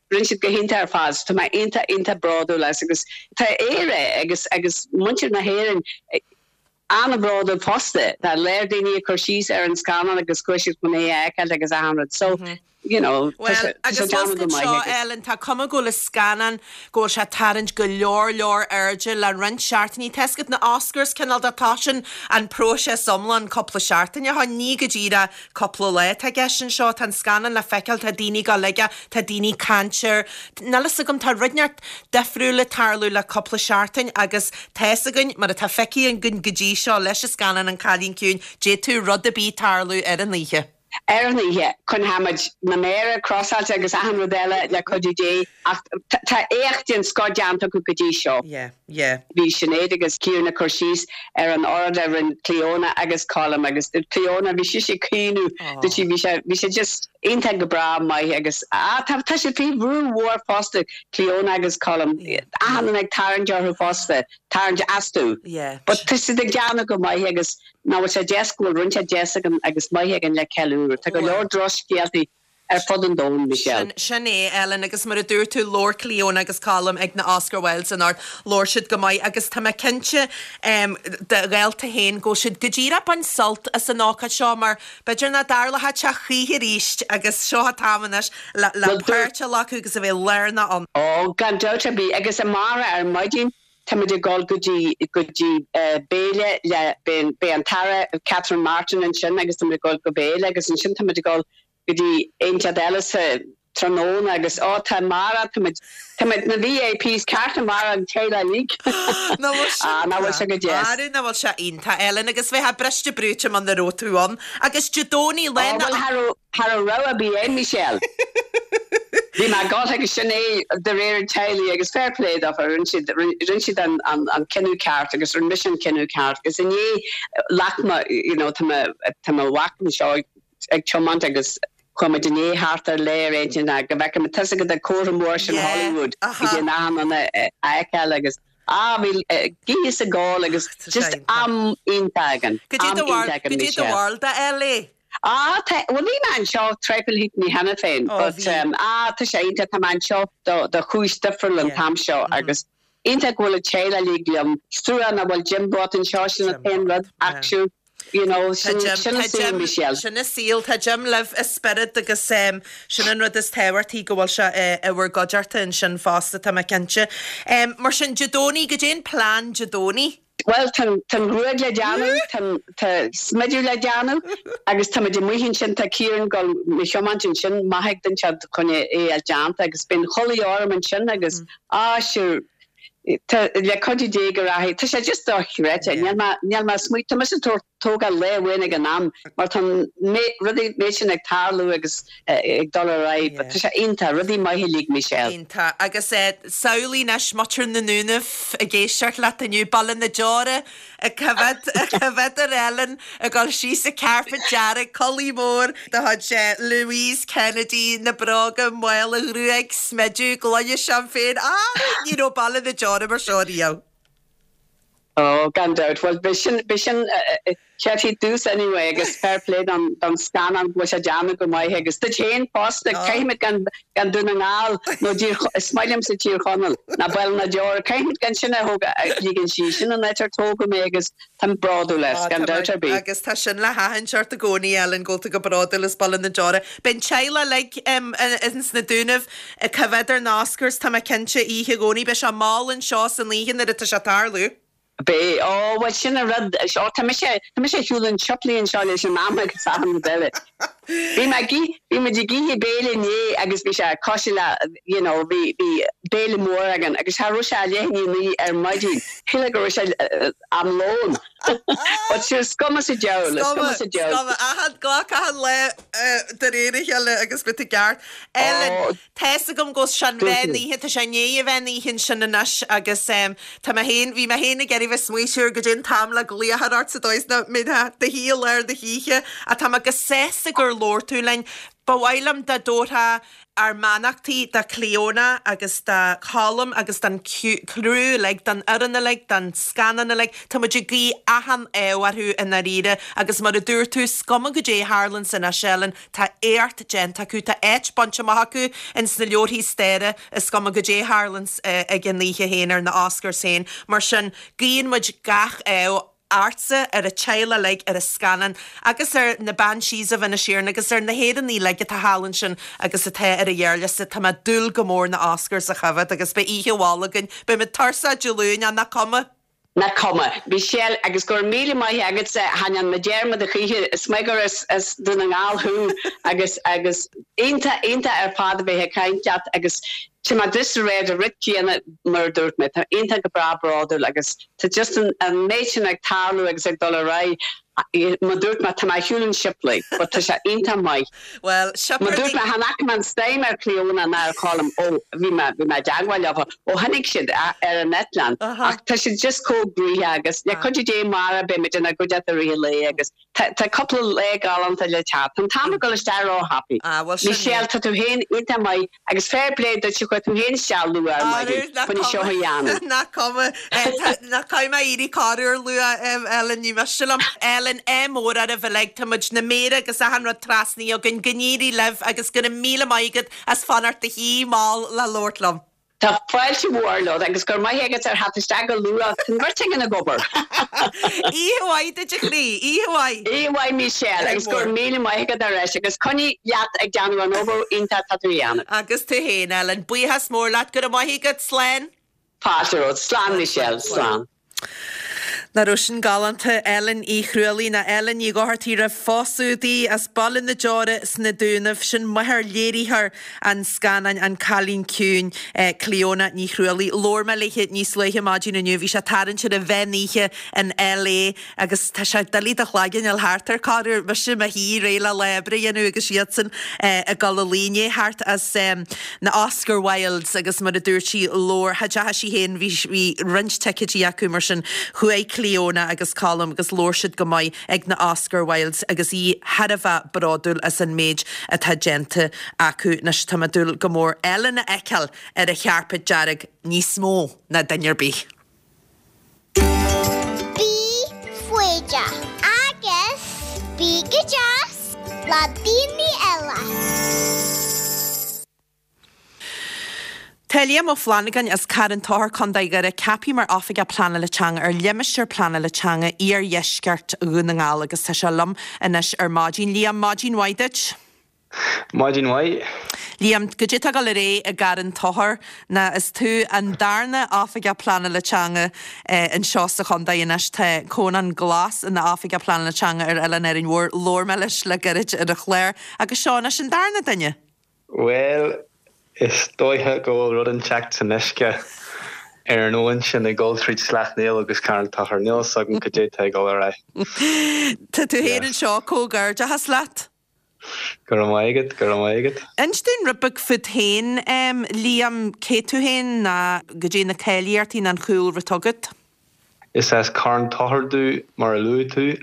S5: rinne siad go hiontach ar fad. So tá mé iontach iontach bródúil as agus tá Éire agus agus muintir na hÉireann an-bhródúil fosta. Tá léir daoine ag cur síos ar an scannán agus chuaigh siad chun é a fheiceáil agus achan rud. So you know, tá
S1: Bhuel,
S5: sé tá sé
S1: agus
S5: déanamh go
S1: foscailt
S5: maith
S1: seo,
S5: agus.
S1: Ellen, tá cuma go bhfuil an scannán, go bhfuil sé ag tarraingt go leor leor airde le roinnt seachtainí. Tá fhios agat na Oscars, cineál de toisíonn an próiseas iomlán cúpla seachtain ó shin, ní go díreach cúpla lá atá i gceist anseo. Tá an scannán le feiceáil, tá daoine ag dul aige, tá daoine ag caint air. Níl fhios agam, tá rud inteacht difriúil ag tarlú le cúpla seachtain agus tá fhios againn, mar atá feicthe againn go dtí seo leis an scannán An Cailín Ciúin, d'fhéadfadh rud ar bith tarlú ar an oíche.
S5: Ar an oíche, coinneoimid na méara crossáilte agus achan rud eile le cuidiú Dé ach tá éacht den scoth déanta acu go dtí seo.
S1: Yeah, yeah.
S5: Bhí Sinéad agus Ciarán ag cur síos ar an óráid a rinne Clíona agus Colm agus Clíona, bhí sise ag caoineadh, dúirt sí, bhí sé, bhí sé just iontach go breá maith agus ah tá, tá siad faoi bhrú mhór fosta, Clíona agus Colm, achan duine ag tarraingt orthu fosta, tarraingt astu.
S1: Yeah.
S5: But tá siad ag déanamh go maith agus Nach bhfuil sé deas go bhfuil rud inteacht deas againn agus maith againn le ceiliúradh. Tá go leor drochscéaltaí. Ar fud an domhain,
S1: Michelle. Sin é, Ellen, agus mar a dúirt tú, labhair Clíona agus Colm ag na Oscar Wildes anocht, labhair siad go maith agus tá mé cinnte do ghaolta féin go bhfuil siad go díreach ag baint sult as an ócáid seo mar b'fhéidir nach dtarlóidh sé choíche arís agus seo an t-am anois le páirt a ghlacadh agus a bheith lárnach ann.
S5: Ó, gan dabht ar bith, agus amárach ar maidin táimid ag dul go dtí go dtí béile le, beidh an tAire Catherine Martin ansin agus táimid ag dul go béile agus ansin táimid ag dul go dtí áit eile sa tráthnóna agus ó tá amárach táimid táimid na VIPs ceart amárach an teaghlach uilig.
S1: Nach bhfuil sin
S5: Ah nach bhfuil sé go deas.
S1: Arú nach bhfuil sé iontach Ellen agus bheifeá briste brúite muna raibh tú ann. Agus Dé Domhnaigh
S5: lá na. Ó bhuel cha raibh cha raibh rogha ar bith a'm Michelle. Bhí mé ag dul agus sin é de réir an teaghlaigh agus fair play dófa rinne siad rinne siad an an an cinneadh ceart agus rinne mise an cinneadh ceart agus inné ghlac mé you know tá mo tá mo mhac anseo ag tiomáint agus chuaigh muid inné thart ar lá ar intinn go bhfeicfidh muid tá's agat an comhartha mór sin Hollywood go dtí an achan duine a fheiceáil agus ah bhí ag ithe is ag ól agus just am iontach againn, am iontach againn
S1: Michelle. Goidé do bharúil de LA?
S5: Ah tá, bhuel bhí mé anseo traidhfil thíochtaí cheana féin but ah tá sé iontach, tá mé anseo do do chúis difriúil an t-am seo agus iontach go bhfuil an teaghlach uilig liom, is trua nach bhfuil Jim bocht anseo sin an t-aon rud ach sure. You know,
S1: sin
S5: an saol, Michelle.
S1: Sin an saol. Tá Jim libh i spiorad agus sin an rud is tábhachtaí, go bhfuil sé i bhur gcuideachta ansin fosta, tá mé cinnte. Mar sin, Dé Domhnaigh, goidé an plean Dé Domhnaigh?
S5: Bhuel, tá an ghruaig le déanamh, tá smideadh le déanamh agus táimid amuigh ansin, tá Ciarán ag dul mo thiomáint ansin, maith ag duine inteacht chun é a fháil déanta agus beidh an chulaith orm ansin agus, ah, sure, Tá, le cuidiú Dé go rachaidh. Tá sé just dochreidte. Níl mé, níl mé ag smaoineamh, tá mise ag tabhairt, tógáil lá amháin ag an am mar tá an méid, rudaí, méid sin ag tarlú agus ag dul ar aghaidh but tá sé iontach, rudaí maithe uilig, Michelle.
S1: Iontach. Agus samhlaigh anois muintir na nDúnaibh ag éisteacht leat inniu, Baile na Deora ag coimhéad, ag coimhéad ar Ellen ag dul síos an carpet dearg, culaith mhór de chuid Louise Kennedy, na bróga, mála, gruaig, smideadh, gloine seaimpéin, ah, ní raibh Baile na Deora mar seo riamh.
S5: Oh, gan dabht. Bhuel, b'shin, b'shin céard dtús anyway agus fair play don, don scannán go bhfuil sé déanta go maith agus duit féin fosta, caithfimid gan, gan Dún na nGall nó dTír, is maith liomsa Tír Chonaill ná Baile na Deora, caithfimid gan sin a thóg, a ligean síos, sin an áit ar tógadh mé agus táim bródúil as, gan dabht ar bith.
S1: Agus tá sin le haithint ort i gcónaí, Ellen, go bhfuil tú go bródúil as Baile na Deora. Beidh an teaghlach uilig ins na Dúnaibh ag coimhéad ar na Oscars, tá mé cinnte, oíche Dhomhnaigh. Beidh sé mall anseo san oíche nuair atá sé ag tarlú.
S5: Beidh. Ó, bhuel, sin an rud. Ó, tá mise, tá mise ar shiúl an tsiopli anseo leis an am agus achan rud eile. Bhí mé ag ith, bhí muid ag ithe béile inné agus bhí sé cosúil le, you know, bhí, bhí béile mór againn agus cha raibh sé ach leath i ndiaidh a naoi ar maidin. Shílfeá go raibh sé am lóin. But sure, is cuma sa diabhal, is cuma sa diabhal.
S1: Is cuma, achan, glac achan lá de réir a chéile agus beidh tú i gceart. Ellen. Tá's agam go bhfuil sé an mheán oíche, tá sé i ndiaidh an mheán oíche ansin anois agus tá mé féin, bhí mé féin ag iarraidh bheith smaoitiú siar goidé an t-am le glaoch a chur ort sa dóigh is nach mbeifeá i do shuí i lár na hoíche ach tá mé go sásta gur labhair tú linn. Ba mhaith liom dá dtabharfá ár mbeannachtaí do Clíona agus do Cholm agus don criú uilig, don fhoireann uilig, don scannán uilig. Tá muid ag guí achan ádh orthu i ndáiríre agus mar a dúirt tú, is cuma goidé a tharlaíonns anois, Ellen, Tá éacht déanta acu, tá áit bainte amach acu ins na leabharthaí staire, is cuma goidé a tharlaíonns ag an oíche féin ar na Oscars féin. Mar sin, guíonn muid gach ádh ortsa, ar an teaghlach uilig, ar an scannán agus ar na Banshees of Inisherin agus ar na hÉireannaigh uilig atá thall ansin agus atá ar an ghearrliosta. Tá mé ag dúil go mór na Oscars a choimhéad agus beidh oíche mhall againn. Beidh muid tuirseach Dé Luain ach nach cuma.
S5: Nach cuma. Michelle, Agus go raibh míle maith agatsa, chan dhearna mé dearmad a choíche, is maith gur as as Dún na nGall thú agus agus iontach iontach ar fad a bheith ag caint leat agus tá mé just ag rá an rud céanna mar a dúirt mé, tá iontach go breá bródúil agus tá just an an méid sin ag tarlú agus ag dul ar aghaidh Mar dúirt mé, tá mé ar shiúl an tsiopli, but tá sé iontach maith.
S1: Bhuel,
S5: Mar dúirt mé, chan fhaca mé an stime ar Clíona ná ar Cholm ó bhí mé, bhí mé i dteagmháil leo ó tháinig siad ar an eitleán. Ach tá siad just chomh gnoitheach agus le cuidiú Dé amárach beidh muid inár gcuideachta i rith an lae agus. Tá cúpla lá galánta le teacht. Tá an t-am ag dul isteach ró-thapaidh.
S1: Ah, bhuel sin é.
S5: Michelle, tá tú féin iontach maith agus fair play duit chuaigh tú féin isteach luath ar maidin chun é seo a dhéanamh.
S1: Nach cuma. Nach caithfidh mé éirí corruair luath, Ellen, ní miste liom. Ellen, ádh mór oraibh uilig, tá muid na méara agus achan rud trasnaithe againn, go n-éirí libh agus go raibh míle maith agat as fanacht i do shuí mall le labhairt liom.
S5: Tá fáilte mhór romhat agus go raibh maith agat ar theacht isteach go luath. Tá an bheirt againn ag obair.
S1: Oíche mhaith duit a chroí, oíche mhaith.
S5: Oíche mhaith Michelle agus go raibh míle maith agat ar ais agus coinnigh leat ag déanamh an obair iontach atá tú a dhéanamh.
S1: Agus tú féin Ellen. Buíochas mór leat. Go raibh maith agat. Slán.
S5: Fáilte romhat. Slán Michelle. Slán.
S1: Nach raibh sin galánta? Ellen Uí Chrualaoí nó Ellen Ní Dhochartaigh roimh phósadh di, as Baile na Deora sna Dúnaibh. Sin máthair léiritheoir an scannáin An Cailín Ciúin, Clíona Ní Chrualaoí. Labhair mé léi níos luaithe maidin inniu. Bhí sé tarraingt ar an mheán oíche in LA agus tá sé doiligh do chloigeann a fháil thart ar corruair. Mise i mo shuí réidh le lá oibre a dhéanamh agus iadsan ag dul a luí i ndiaidh theacht as na Oscar Wildes agus mar a dúirt sí, labhair, cha dteacha sí féin, bhí, bhí roinnt ticéidí acu mar sin chuaigh Clíona agus Colm agus labhair siad go maith ag na Oscar Wildes agus í thar a bheith bródúil as an méid atá déanta acu. Anois tá mé ag dúil go mór Ellen a fheiceáil ar an chairpéad dearg níos mó ná duine ar bith.
S4: Bí foighdeach agus bí go deas le daoine eile.
S1: Tá Liam Ó Flannagáin as Carn Tóchair, Co. Dhoire, ceaptha mar Oifigeach Pleanála Teanga ar Limistéar Pleanála Teanga Iardheisceart Dhún na nGall agus tá sé liom anois ar maidin. Liam, maidin mhaith duit.
S6: Maidin mhaith.
S1: Liam, goidé tá ag dul ar aghaidh i gCarn Tóchair ná is tú an darna Oifigeach Pleanála Teanga anseo sa chontae anois. Tá Conán Glas ina Oifigeach Pleanála Teanga ar Oileán Árainn Mhór. Labhair mé leis le gairid ar an chlár agus seo anois an darna duine.
S6: Bhuel, is dóiche go bhfuil rud inteacht san uisce ar an abhainn sin ag dul tríd Sleacht Néill agus Carn Tóchair. Níl fhios agam cad é tá ag dul ar
S1: aghaidh. Tá tú féin anseo, comhghairdeachas leat.
S6: Go raibh maith agat, go raibh maith agat.
S1: Inis dúinn rud beag fút féin, Liam, cé tú féin ná goidé na cáilíochtaí ná an chúlra atá agat?
S6: Is as Carn Tóchair domh, mar a luaigh tú,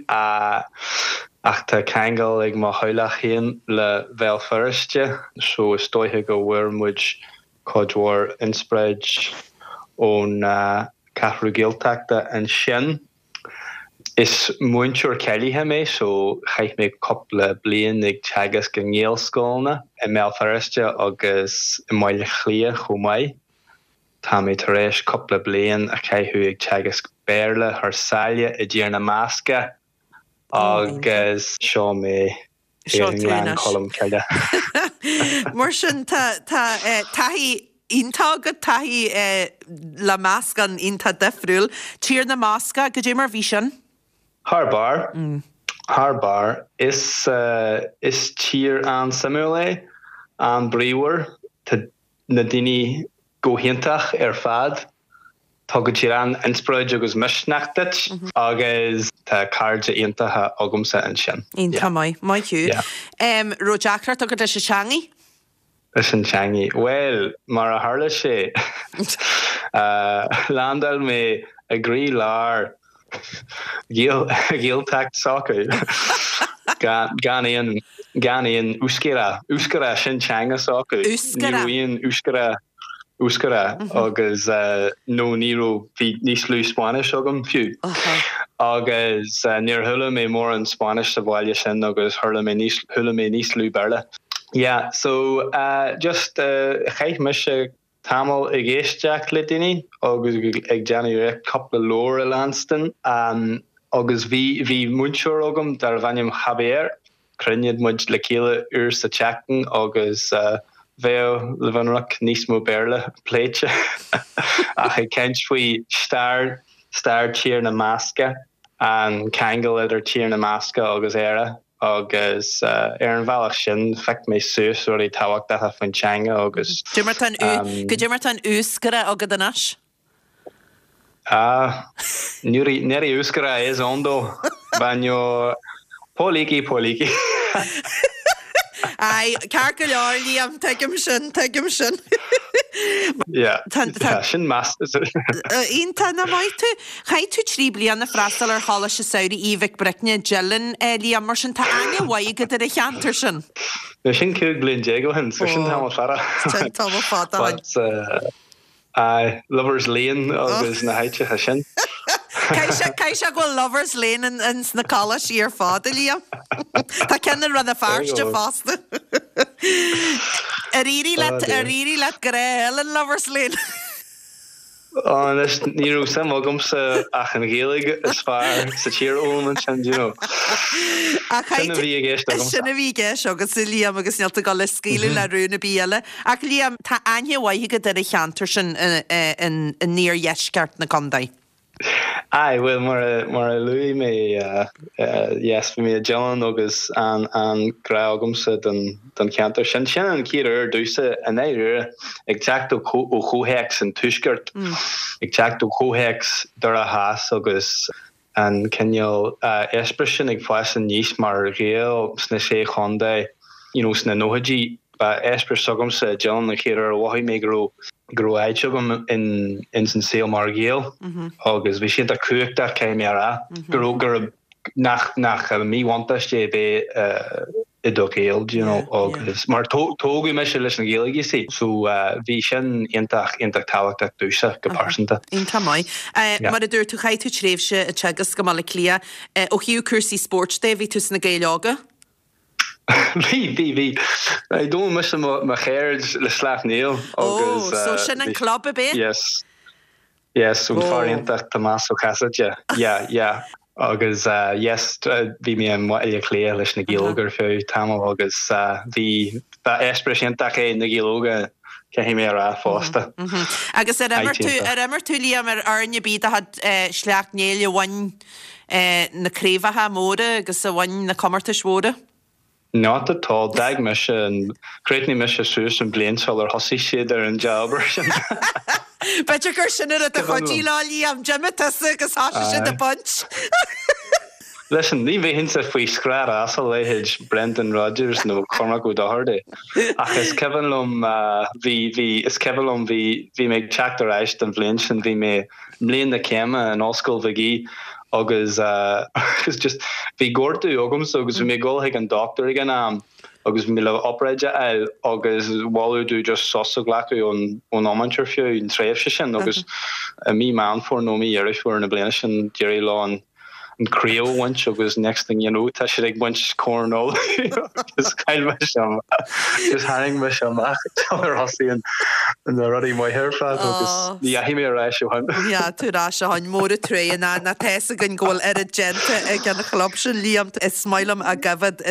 S6: ach tá ceangal ag mo theaghlach féin le Bhéal Feirste, so is dóiche go bhfuair muid cuid mhór inspioráid ón Cheathrú Gaeltachta ansin. Is múinteoir cáilithe mé, so chaith mé cúpla bliain ag teagasc i nGaelscoileanna i mBéal Feirste agus i mBaile Átha Cliath chomh maith. Tá mé tar éis cúpla bliain a chaitheamh ag teagasc Béarla thar sáile i dTír na mBascach agus seo mé i nGleann Cholm Cille.
S1: Mar sin tá taithí iontach agat, taithí le meascán iontach difriúil. Tír na mBascach, goidé mar bhí sin?
S6: Thar barr. Thar barr. Is is tír an-suimiúil é, an-bríomhar. Tá na daoine go hiontach ar fad. Tugann siad an-inspioráid agus misneach duit agus tá cairde iontacha agamsa ansin.
S1: Iontach maith. Maith thú. Raibh deacracht agat leis an teangaidh?
S6: Leis an teangaidh? Bhuel, mar a tharla sé, landáil mé i gcroí-lár Ghaeltacht s'acu. Gan aon, gan aon Euskera, Euskera, sin teanga s'acu. Ní raibh aon Euskera, Euskera agus nó ní raibh, bhí níos lú Spáinnis agam fiú. Agus níor chuala mé mórán Spáinnis sa bhaile sin agus chuala mé níos, chuala mé níos lú Béarla. Yeah, so just chaith mise tamall ag éisteacht le daoine agus ag déanamh iarracht cúpla leabhar a leanstan agus bhí bhí múinteoir agam darbh ainm Javier, chruinnigh muid le chéile uair sa tseachtain agus bheadh le bheith ionraic níos mó Béarla pléite ach ag caint faoi stair stair Tír na mBascach, an ceangal idir Tír na mBascach agus Éire. agus ar an bhealach sin phioc mé suas rudaí tábhachtacha faoin teanga agus.
S1: Goidé mar tá an Euskera agat anois?
S6: Ah, nire Euskera ez ondo, baino poliki poliki.
S1: Aye, ceart go leor, Liam, tuigim sin, tuigim sin.
S6: Yeah, tá sin meas.
S1: Iontach, nach maith tú. Chaith tú 3 bliana freastal ar Choláiste Samhraidh Aoidh Mhic Bricne i dTeileann, Liam, mar sin tá aithne mhaith agat ar an cheantar sin.
S6: Now sin 15 bliain ó shin, so sin tamall fada.
S1: Sin tamall fada ó
S6: shin. Aye, Lovers Lane agus na háiteacha sin.
S1: Caithfidh sé go bhfuil Lovers Lane ins na coláistí ar fad, a Liam. Tá ceann i Rann na Feirste fosta. Ar éirigh leat, ar éirigh leat grá a fháil in Lovers Lane?
S6: Anois, ní raibh suim agamsa ach an Ghaeilge is fearr sa tír a fhoghlaim ansin, do you know. Sin a bhí i gceist agamsa.
S1: Sin a bhí i gceist agatsa, Liam, agus níl tú ag dul a scaoileadh le rún ar bith eile. Ach Liam, tá aithne mhaith agat ar an cheantar sin in iardheisceart na contae.
S6: Aye, bhuel, mar a, mar a luaigh mé, yes, bhí mé i dTeileann agus an, an grá agamsa don, don cheantar sin. Sin an chéad uair domhsa, i ndáiríre, ag teacht ó, ó chomhthéacs an tuaiscirt, ag teacht ó chomhthéacs Doire Theas agus an cineál eispéireas sin ag fás aníos mar Ghael sna Sé Chontae you know sna nóchaidí. Ba eispéireas s'agamsa i dTeileann an chéad uair a mhothaigh mé go raibh go raibh áit agam in ins an saol mar Ghael agus bhí sé iontach cumhachtach caithfidh mé a rá go raibh go raibh nach nach míbhuntáiste é bheith i do Ghael do you know agus mar tógadh mise leis an Ghaeilge you see so bhí sin iontach iontach tábhachtach domhsa go pearsanta.
S1: Iontach maith. Mar a dúirt tú chaith tú tréimhse ag teagasc i mBaile Átha Cliath. Ó thaobh cúrsaí spóirt de bhí tú sna Gaeil Óga?
S6: Bhí bhí bhí. D'fhoghlaim mise mo cheird le Sleacht Néill
S1: agus. Ó so sin an club ab é?
S6: Yes. Yes, ón fear iontach Tomás Ó Casaide. Yeah, yeah. Agus yes, bhí mé i mBaile Átha Cliath leis na Gaeil Óga ar feadh tamaill agus bhí, ba eispéireas iontach é na Gaeil Óga, caithfidh mé a rá fosta.
S1: Agus ar imir tú, ar imir tú, Liam, ar fhoireann ar bith de chuid Shleacht Néill a bhain na craobhacha móra agus a bhain na comórtais mhóra?
S6: Not at all. D'fhág mise an, chríochnaigh mise suas an bhliain sular thosaigh siad ar an dea-obair sin.
S1: B'fhéidir gur sin an rud a chuidigh leo, Liam. D'imigh tusa agus thosaigh siad ag baint.
S6: Listen, ní bheinnse faoi scraith as a leithéid Brendan Rodgers nó Cormac Ó Dochartaigh. Ach is cuimhin liom, bhí, bhí, is cuimhin liom, bhí, bhí mé ag teacht ar ais don bhliain sin, bhí mé, mbliain na céime in Ollscoil Magee agus agus just bhí gortú agamsa agus bhí mé ag dul chuig an dochtúir ag an am agus bhí mé le obráid a fháil agus moladh domh just sos a ghlacadh ón ón iomáint ar feadh an tréimhse sin agus i mí Meán Fómhair nó mí Dheireadh Fómhair na bliana sin d'éirigh leo an an craobh a bhaint agus next thing you know tá siad ag baint Corn Uladh agus chaill mise just tharraing mise amach ar thosaigh an na rudaí maithe ar fad agus ní dheachaigh mé ar ais ó
S1: shin. Ní dheachaigh tú ar ais ó shin, mór an truaighe ná ná tá fhios againn go bhfuil oiread déanta ag an chlub sin Liam. Is maith liom a gcoimhéad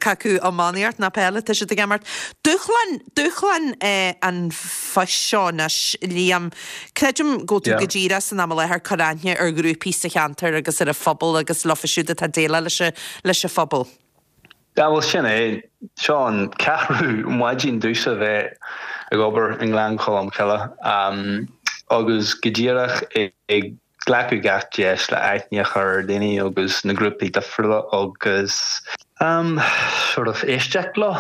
S1: cé acu iománaíocht ná peil atá siad ag imirt. Dúshlán, dúshlán an phoist seo anois Liam. Creidim go bhfuil tú go díreach san am i láthair ag cur aithne ar ghrúpaí sa cheantar agus ar an phobal agus leofa siúd atá ag déileáil leis leis an phobal.
S6: Yeah, bhuel sin é. Seo an ceathrú maidin domhsa bheith ag obair i nGleann Cholm Cille agus go díreach ag glacadh gach deis le aithne a chur ar dhaoine agus na grúpaí difriúla agus sort of éisteacht leo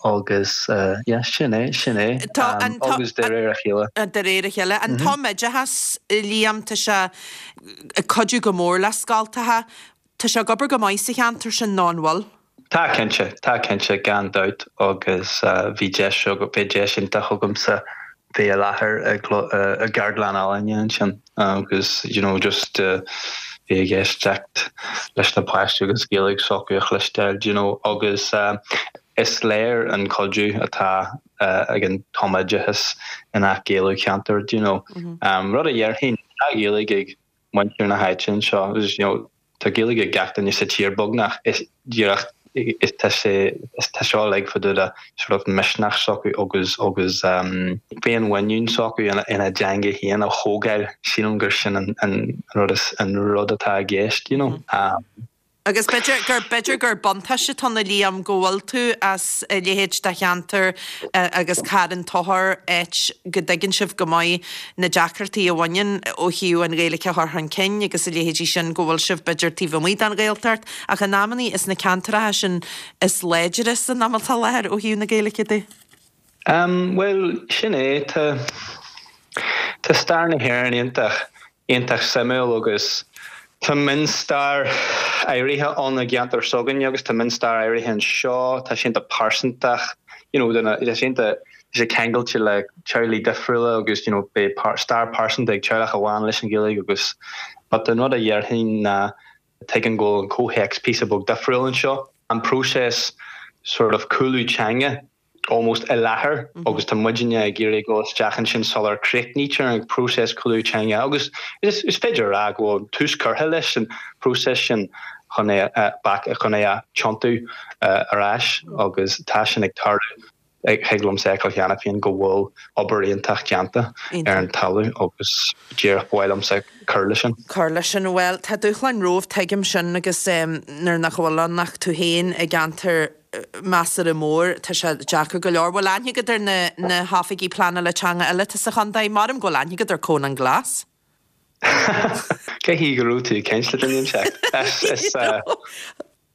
S6: agus yeah sin é, sin é agus de réir a chéile.
S1: De réir a chéile. An tumoideachas, Liam, tá sé ag cuidiú go mór le scoltacha. Tá sé ag obair go maith sa cheantar sin nó an bhfuil?
S6: Tá cinnte, tá cinnte, gan dabht agus bhí deis, bhí deis iontach agamsa bheith i láthair i gceardlann ealaíne ansin agus you know just bheith ag éisteacht leis na páistí agus Gaeilge s'acu a chloisteáil you know agus is léir an cuidiú atá ag an tumoideachas i ngach ceantar you know. Rud a dhéarfainn, tá Gaeilge ag muintir na háite anseo agus you know tá Gaeilge ag gach duine sa tír beagnach is díreach is tá sé is tá seo uilig fá dtaobh de sort of misneach s'acu agus agus um féinmhuinín s'acu ina ina dteanga féin a thógáil sílim gur sin an an rud is an rud atá i gceist you know um.
S1: Agus b'fhéidir gur, b'fhéidir gur buntáiste atá ann a Liam go bhfuil tú as a leithéid de cheantar agus Carn Tóchair, áit go dtuigeann sibh go maith na deacrachtaí a bhaineann ó thaobh an Ghaeilge a chur chun cinn agus a leithéidí sin, go bhfuil sibh b'fhéidir taobh amuigh den Ghaeltacht ach in amannaí is na ceantracha sin is láidre san am atá i láthair ó thaobh na Gaeilge de.
S6: Bhuel, sin é. Tá, tá stair na hÉireann iontach, iontach suimiúil agus tá mionstair áirithe ann i gceantar s'againne agus tá mionstair áirithe anseo. Tá sé iontach pearsantach, you know, tá sé iontach, tá sé ceangailte le teaghlaigh difriúla agus, you know, beidh stair pearsanta ag teaghlach amháin leis an Ghaeilge agus, but an rud a dhéarfainn ná tuigim go bhfuil an comhthéacs píosa beag difriúil anseo, an próiseas sort of cúlú teanga almost i láthair agus tá muidinne ag iarraidh dul isteach ansin sular críochnaítear an próiseas cúlú teanga agus is féidir a rá go bhfuil tús curtha leis an próiseas sin chun é a back chun é a tiontú ar ais agus tá sin ag tarlú. Thig liomsa a fheiceáil cheana féin go bhfuil obair iontach déanta ar an talamh agus díreach ba mhaith liomsa cur leis sin.
S1: Cur leis sin. Bhuel, tá dúshláin romhaibh, tuigim sin agus nuair nach bhfuil ann ach tú féin i gceantar measartha mór, tá sé deacair go leor. Bhfuil aithne agat ar na na hoifigigh pleanála teanga eile atá sa chontae? Maram go bhfuil aithne agat ar Conán Glas.
S6: Cé hí go raibh tú ag caint le duine inteacht? Is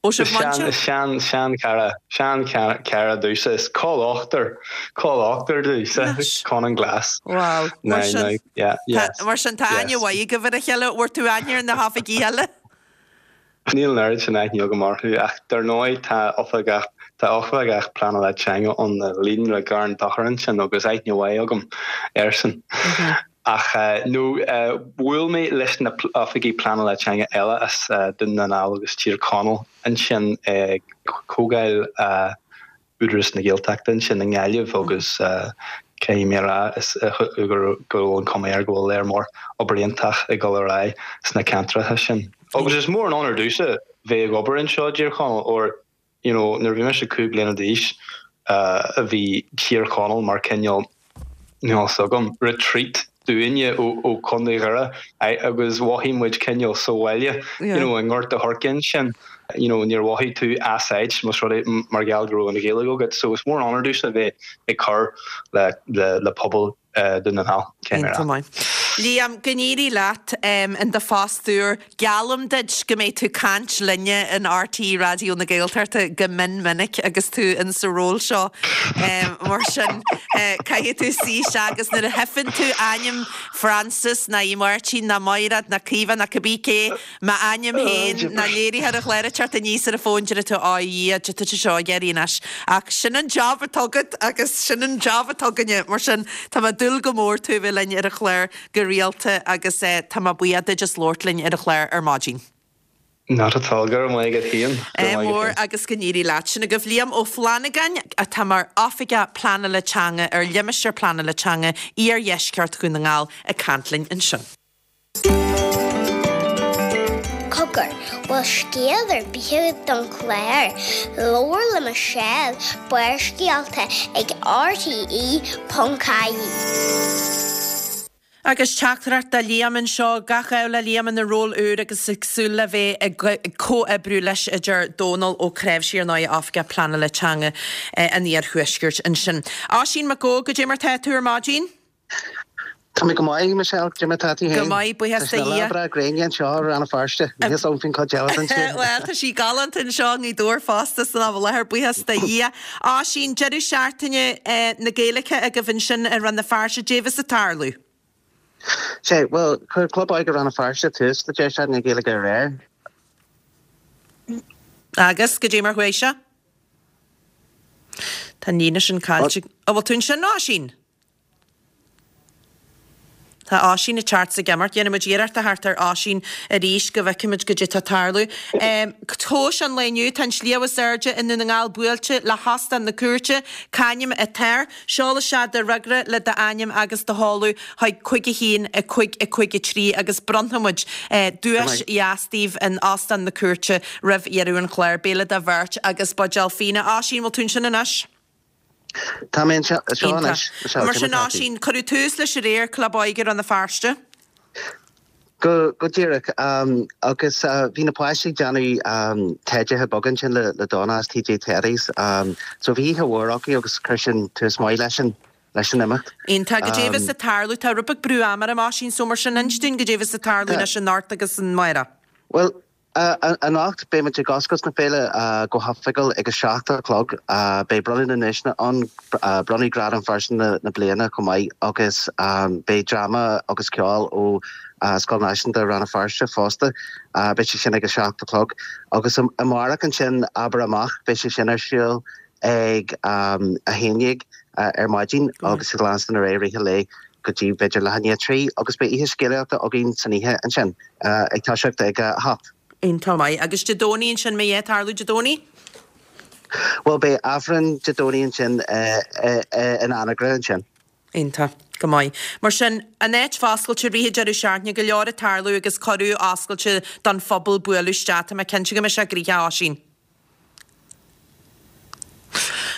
S1: Ó sibh muintir?
S6: Is sean, sean-chara, sean-chara domhsa, is col ochtar, col ochtar domhsa, Conán Glas.
S1: Wow, mar sin,
S6: yeah, yes,
S1: mar sin tá aithne mhaith agaibh ar a chéile, bhfuair tú aithne ar na hoifigigh eile?
S6: Níl an oiread sin aithne agam orthu, ach dar ndóigh tá oifigeach, tá oifigeach pleanála teanga ann i Líonra Gharraí an Tóchair ansin agus aithne mhaith agam airsean. Ach nó bhuail mé leis na oifigigh pleanála teanga eile as Dún na nGall agus Tír Chonaill ansin ag comhdháil Údarás na Gaeltachta ansin i nGaillimh agus caithfidh mé a rá go bhfuil an cuma air go bhfuil léar mór obair iontach ag dul ar aghaidh sna ceantracha sin. Agus is mór an onóir domhsa bheith ag obair anseo i dTír Chonaill óir you know, nuair a bhí mise 5 bliana d'aois, bhí Tír Chonaill mar cineál, níl a fhios agam, retreat dúinne ó Chontae Dhoire agus mhothaigh muid cineál sa bhaile, you know, i nGort a' Choirce ansin, you know, níor mhothaigh tú as áit más rud é mar gheall go raibh an Ghaeilge agat. So is mór an onóir domhsa bheith ag cur le le pobal Dún na nGall.
S1: Iontach maith. Liam, go n-éirí leat in do phost úr. Geallaim duit go mbeidh tú caint linne in RTÉ Raidió na Gaeltachta go mion minic agus tú in sa ról seo. Mar sin, caithfidh tú suí isteach agus nuair a theipeann tú ainm Frances ná í Máirtín ná Máiréad ná Caoimhe ná cibé cé, M'ainm féin, ná léiritheoir an chláir ag teacht aníos ar an bhfón, déarfaidh tú, Á, a Dhia, cad tá seo ag iarraidh anois. Ach sin an job atá agat agus sin an job atá againne. Mar sin, tá mé ag dúil go mór tú a bheith linn ar an chlár go rialta agus tá mé buíoch duit as labhairt linn ar an chlár ar maidin.
S6: Not at all. Go raibh maith agat féin.
S1: Go raibh maith agat mór agus go n-éirí leat. Sin agaibh Liam Ó Flannagáin atá mar Oifigeach Pleanála Teanga ar Limistéar Pleanála Teanga Iardheisceart Dhún na nGall ag caint linn ansin.
S4: Cogar, bhfuil scéal ar bith agat don chlár? Labhair le Michelle, Barrscéalta ag RTE.ie.
S1: Agus teachtaireacht do Liam anseo, gach ádh le Liam ina ról úr agus ag súil le bheith ag comhoibriú leis, a deir Dónal Ó Cnáimhsí, ar ndóigh, Oifigeach Pleanála Teanga an Iarthuaiscirt ansin. Oisín Mac Góid, goidé mar tá tú ar maidin?
S7: Tá mé go maith, Michelle. Cad é mar tá tú
S1: féin? Go maith, buíochas do
S7: Tá sé
S1: Dhia.
S7: lá breá gréine anseo i Rann na Feirste. Níl a fhios agam faoin chuid eile den tír.
S1: Bhuel, tá sí galánta anseo i nGaoth Dobhair fosta san am i láthair, buíochas do Dhia. Oisín, deireadh seachtaine na Gaeilge agaibh ansin i Rann na Feirste, goidé a bheas ag tarlú?
S7: Sea, bhuel, chuir Club Óige Rann na Feirste tús le deireadh seachtaine na Gaeilge aréir.
S1: Agus, goidé mar chuaigh sé? Tá an líne sin caillte. An bhfuil tú ansin, Oisín? Tá Oisín ag teacht 's ag imeacht. Déanfaidh muid iarracht a theacht ar Oisín arís go bhfeicfimid goidé tá ag tarlú. Tomhais an lae inniu, tá an sliabh is airde i nDún na nGall buailte le hOstán na Cúirte. C'ainm atá air? Seol isteach do fhreagra le d'ainm agus do sheoladh chuig 5 1 5 5 3 agus bronnfaidh muid duais dheas daoibh in Óstán na Cúirte roimh dheireadh an chláir. Béile do bheirt agus buidéal fíona. Oisín, bhfuil tú ansin anois?
S7: Tá mé anseo anois.
S1: Iontach. Mar sin, Oisín, cuireadh tús leis aréir, Club Óige Rann na Feirste.
S7: Go díreach. Agus bhí na páistí ag déanamh teidithe beaga ansin le Donna as TJ Teddy's. So bhí oíche mhór acu agus chuir sin tús maith leis an leis an imeacht.
S1: Iontach. Goidé a bheas ag tarlú? Tá rud beag brú ama orm, Oisín, so mar sin inis dúinn goidé a bheas ag tarlú anois anocht agus amárach.
S7: Bhuel. Anocht, beidh muid ag oscailt na féile go hoifigiúil ag a 7 a chlog. Beidh bronnadh na nduaiseanna ann, bronnadh Gradam Phearsan na Bliana chomh maith agus beidh dráma agus ceol ó Scoil Náisiúnta Rann na Feirste fosta. Beidh sé sin ag a 7 a chlog. Agus amárach ansin, Abair Amach, beidh sé sin ar siúl ag a 11 ar maidin agus ag leanstan ar aghaidh i rith an lae go dtí b'fhéidir leath i ndiaidh 3 agus beidh oíche scéalaíochta againn san oíche ansin ag toiseacht ag a 8.
S1: Iontach maith. Agus Dé Domhnaigh ansin, mbeidh a dhath ag tarlú Dé Domhnaigh?
S7: Bhuel beidh Aifreann Dé Domhnaigh ansin in Anagaire ansin.
S1: Iontach. Go maith. Mar sin, an áit foscailte i rith an deireadh seachtaine, go leor ag tarlú agus cuireadh oscailte don phobal bualadh isteach. Tá mé cinnte go mbeidh sé gnoitheach, a Oisín.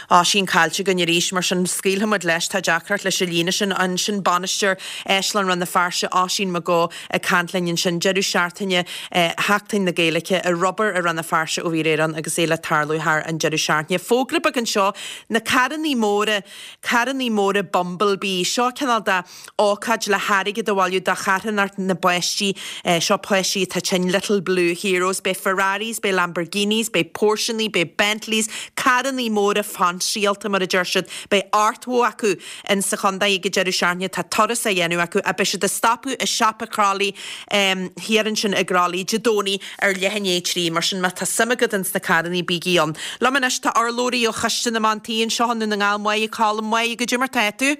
S1: Oisín caillte againn arís, mar sin scaoilfidh muid leis, tá deacracht leis an líne sin. Ansin bainisteoir Áislann Rann na Feirste, Oisín McGeough ag caint linn ansin. Deireadh seachtaine Sheachtain na Gaeilge i Rubber i Rann na Feirste ó bhí aréir ann agus é le tarlú thar an deireadh seachtaine. Fógra beag anseo, na carrannaí móra, carrannaí móra Bumblebee, seo cineál de ócáid le hairgead a bhailiú do charthanacht na bpáistí, seo páistí atá tinn, Little Blue Heroes, beidh Ferraris, beidh Lamborghinis, beidh Porscheannaí, beidh Bentleys, carrannaí móra fainsíálta mar a deir siad, beidh 80 acu in sa chontae ag an deireadh seachtaine, tá turas á dhéanamh acu ach beidh siad ag stopadh i siopa Crolly thiar ansin i gCroithlí Dé Domhnaigh ar leath i ndiaidh 3, mar sin má tá suim agat ins na carrannaí bígí ann. Liom anois tá urlabhraí ó Choiste na mBan Tí anseo i nDún na nGall, Máire Collum, Máire, goidé mar tá tú?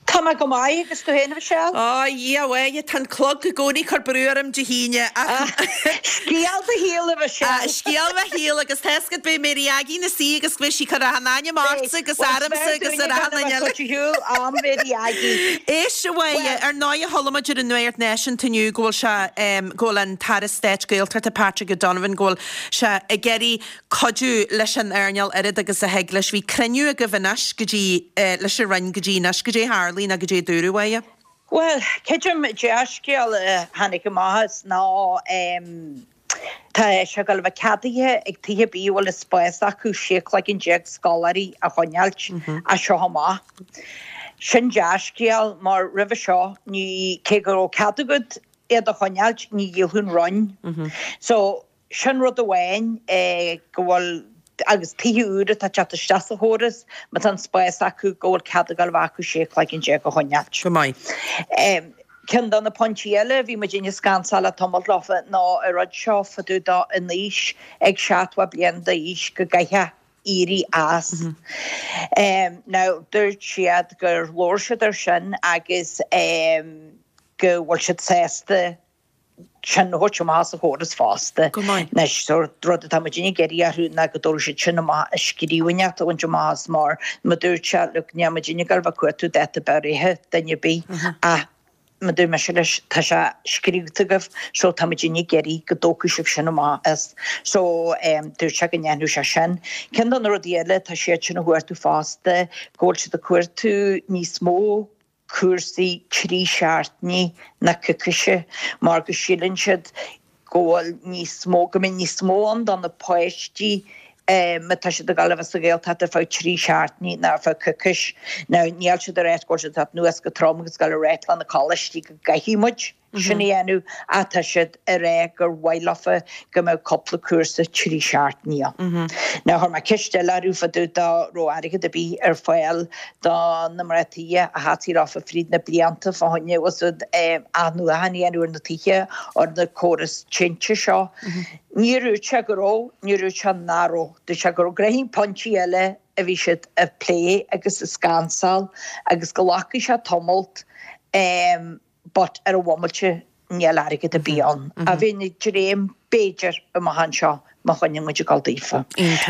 S8: Tá mé go maith, agus tú féin, a Mhichelle?
S1: Ó, a Dhia, a Mháire, tá an clog i gcónaí ag cur brú orm Dé hAoine,
S8: ach. Scéal do shaoil, a Mhichelle.
S1: Scéal mo shaoil, agus tá fhios agat, beidh Mary Aggie ina suí agus beidh sí ag cur achan ainm ortsa agus ormsa agus ar achan duine eile.
S8: Cuid shiúl am Mary Aggie.
S1: Éist, a Mháire, ar ndóigh chuala muid ar an nuacht náisiúnta inniu go bhfuil sé, go bhfuil an tAire Stáit Gaeltachta Patrick O'Donovan, go bhfuil sé ag iarraidh cuidiú leis an earnáil oiread agus a thig leis. Bhí cruinniú agaibh anois go dtí, leis an Roinn go dtí anois. Goidé a tharlaigh nó goidé a dúradh, a Mháire?
S8: Bhuel, creidim dea-scéal a tháinig amach as ná tá sé ag dul a bheith ceadaithe ag tithe ar bith a bhfuil an spás acu 16 cloigeann scoláirí a choinneáilt as seo amach. Sin dea-scéal mar roimhe seo ní, cé go raibh cead agat iad a choinneáilt, ní dhíolfadh an Roinn. So, Sin rud amháin go bhfuil, agus tithe úra atá ag teacht isteach sa chóras, má tá an spás acu, go bhfuil cead ag dul a bheith acu 16 cloigeann a choinneáilt.
S1: Go maith.
S8: Ceann de na pointí eile a bhí muidinne ag scansáil le tamall leofa ná an rud seo fá dtaobh de an aois ag 70 bliain d'aois go gcaithfeá éirí as. Now dúirt siad gur labhair siad ar sin agus go bhfuil siad sásta sin a thabhairt amach as an chóras fosta.
S1: Go maith.
S8: Anois, sórt rud atá muidinne ag iarraidh orthu ná go dtabharfaidh siad sin amach i scríbhinn a bhaint amach as mar mar dúirt sé, look, níl muidinne ag gabháil a bheith ag cuartú dáta breithe duine ar bith ach mar dúirt mise leis, tá sé scríobhta agaibh so tá muidinne ag iarraidh go dtógfaidh sibh sin amach as. So dúirt sé go ndéanfadh sé sin. Ceann de na rudaí eile tá siad sin a chuartú fosta, go bhfuil siad ag cuartú níos mó cúrsaí 3 seachtainí ná coicíse mar go síleann siad go bhfuil níos mó, go mbeidh níos mó ann do na páistí má tá siad ag dul a bheith sa Ghaeltacht ar feadh 3 seachtainí ná ar feadh coicís. Now níl siad ag ráit go bhfuil siad ag teacht anuas go trom agus ag dul a ráit le na coláistí go gcaithfidh muid sin a dhéanamh ach tá siad ag rá gur mhaith leofa go mbeadh cúpla cúrsa 3 seachtainí ann. Now chuir mé ceist eile orthu fá dtaobh dá raibh airgead ar bith ar fáil do na mná tithe a theastaigh leofa fríd na blianta fá choinne úsáid athnuachan a dhéanamh ar na tithe ar na córas tinte seo. Níor dhúirt sé go raibh, níor dhúirt sé nach raibh. Dúirt sé go raibh gnoithín pointí eile a bhí siad ag plé agus ag scansáil agus go nglacfaidh sé tamalt but ar an bhomaite níl airgead ar bith ann. A bheinn ag dréim b'fhéidir amach anseo má choinníonn muid ag dul daofa.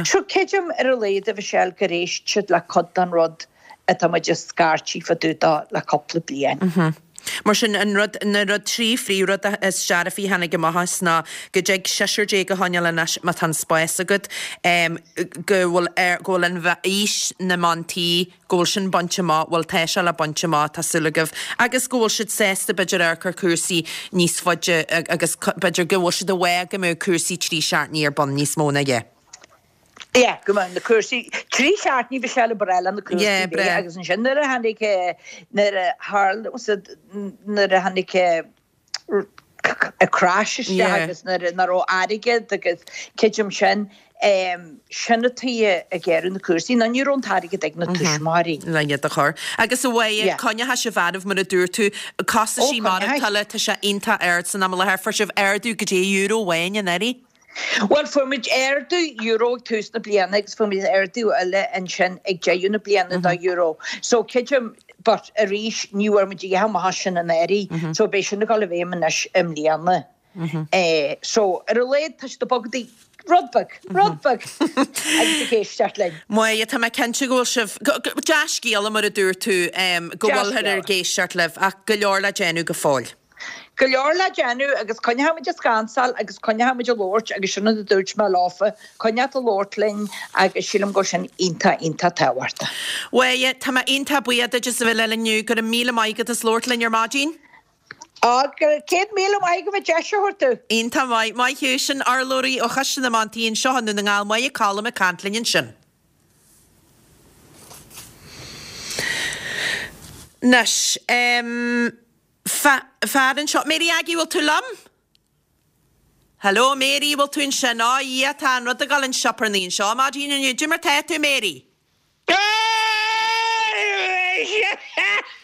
S8: So creidim ar a laghad a Mhichelle gur éist siad le cuid den rud atá muid ag scairtigh fá dtaobh dó le cúpla bliain.
S1: Mar sin, an rud, na rud, 3 phríomhrud is dearfaí a tháinig amach as ná go dtig seisear déag a choinneáil anois má tá an spás agat, go bhfuil ar, go bhfuil an aois na mban tí, go bhfuil sin bainte amach, bhuel tá sé le baint amach, tá súil agaibh, agus go bhfuil siad sásta b'fhéidir amharc ar cúrsaí níos faide agus b'fhéidir go bhfuil siad i bhfáth go mbeadh cúrsaí 3 seachtainí ar bun níos mó ná yeah.
S8: Yeah, go mbeadh na cúrsaí, 3 seachtainí bhí sé le breá le na cúrsaí
S1: Yeah, breá.
S8: agus ansin nuair a tháinig, nuair a tharla, nuair a tháinig. Crash isteach agus nuair nach raibh airgead agus creidim sin, sin an tuige a géaraíodh na cúrsaí nó ní raibh an t-airgead ag na tuismitheoirí.
S1: Le iad a chur. Agus a Mháire, coinneoidh sibh oraibh mar a dúirt tú, costaisí maireachtála, tá sé iontach ard san am i láthair. Fuair sibh ardú go dtí euro amháin anuraidh?
S8: Bhuel, fuair muid ardú euro ag tús na bliana agus fuair muid ardú eile ansin ag deireadh na bliana de euro. So creidim, but arís ní bhfuair muid a dhath amach as sin anuraidh, so beidh sin ag dul i bhfeidhm anois i mbliana. So ar a laghad tá siad ag bogadh rud beag, rud beag agus ag éisteacht linn.
S1: Máire, tá mé cinnte go bhfuil sibh, dea-scéala mar a dúirt tú, go bhfuilthear ag éisteacht libh ach go leor le déanamh go fóill.
S8: Go leor le déanamh agus coinneoidh muid ag scansáil agus coinneoidh muid ag labhairt agus sin rud a dúirt mé leofa, coinneoidh ag labhairt linn agus sílim go bhfuil sin iontach, iontach tábhachtach.
S1: Mháire, tá mé iontach buíoch duit as a bheith linn inniu. Go raibh míle maith agat as labhairt linn ar maidin.
S8: Á, 100,000 maith agat as deis a thabhairt domh.
S1: Iontach maith. Maith thú. Sin urlabhraí ó Choiste na mBantraí anseo i nDún na nGall, Máire Colum ag caint linn ansin. Anois, em. Fear anseo. Mary Aggie, bhfuil tú liom? Hello, Mary, bhfuil tú ansin? Á, a Dhia, tá an rud ag dul an sioparnaí anseo maidin inniu. Cad é mar tá tú, Mary?
S9: Cad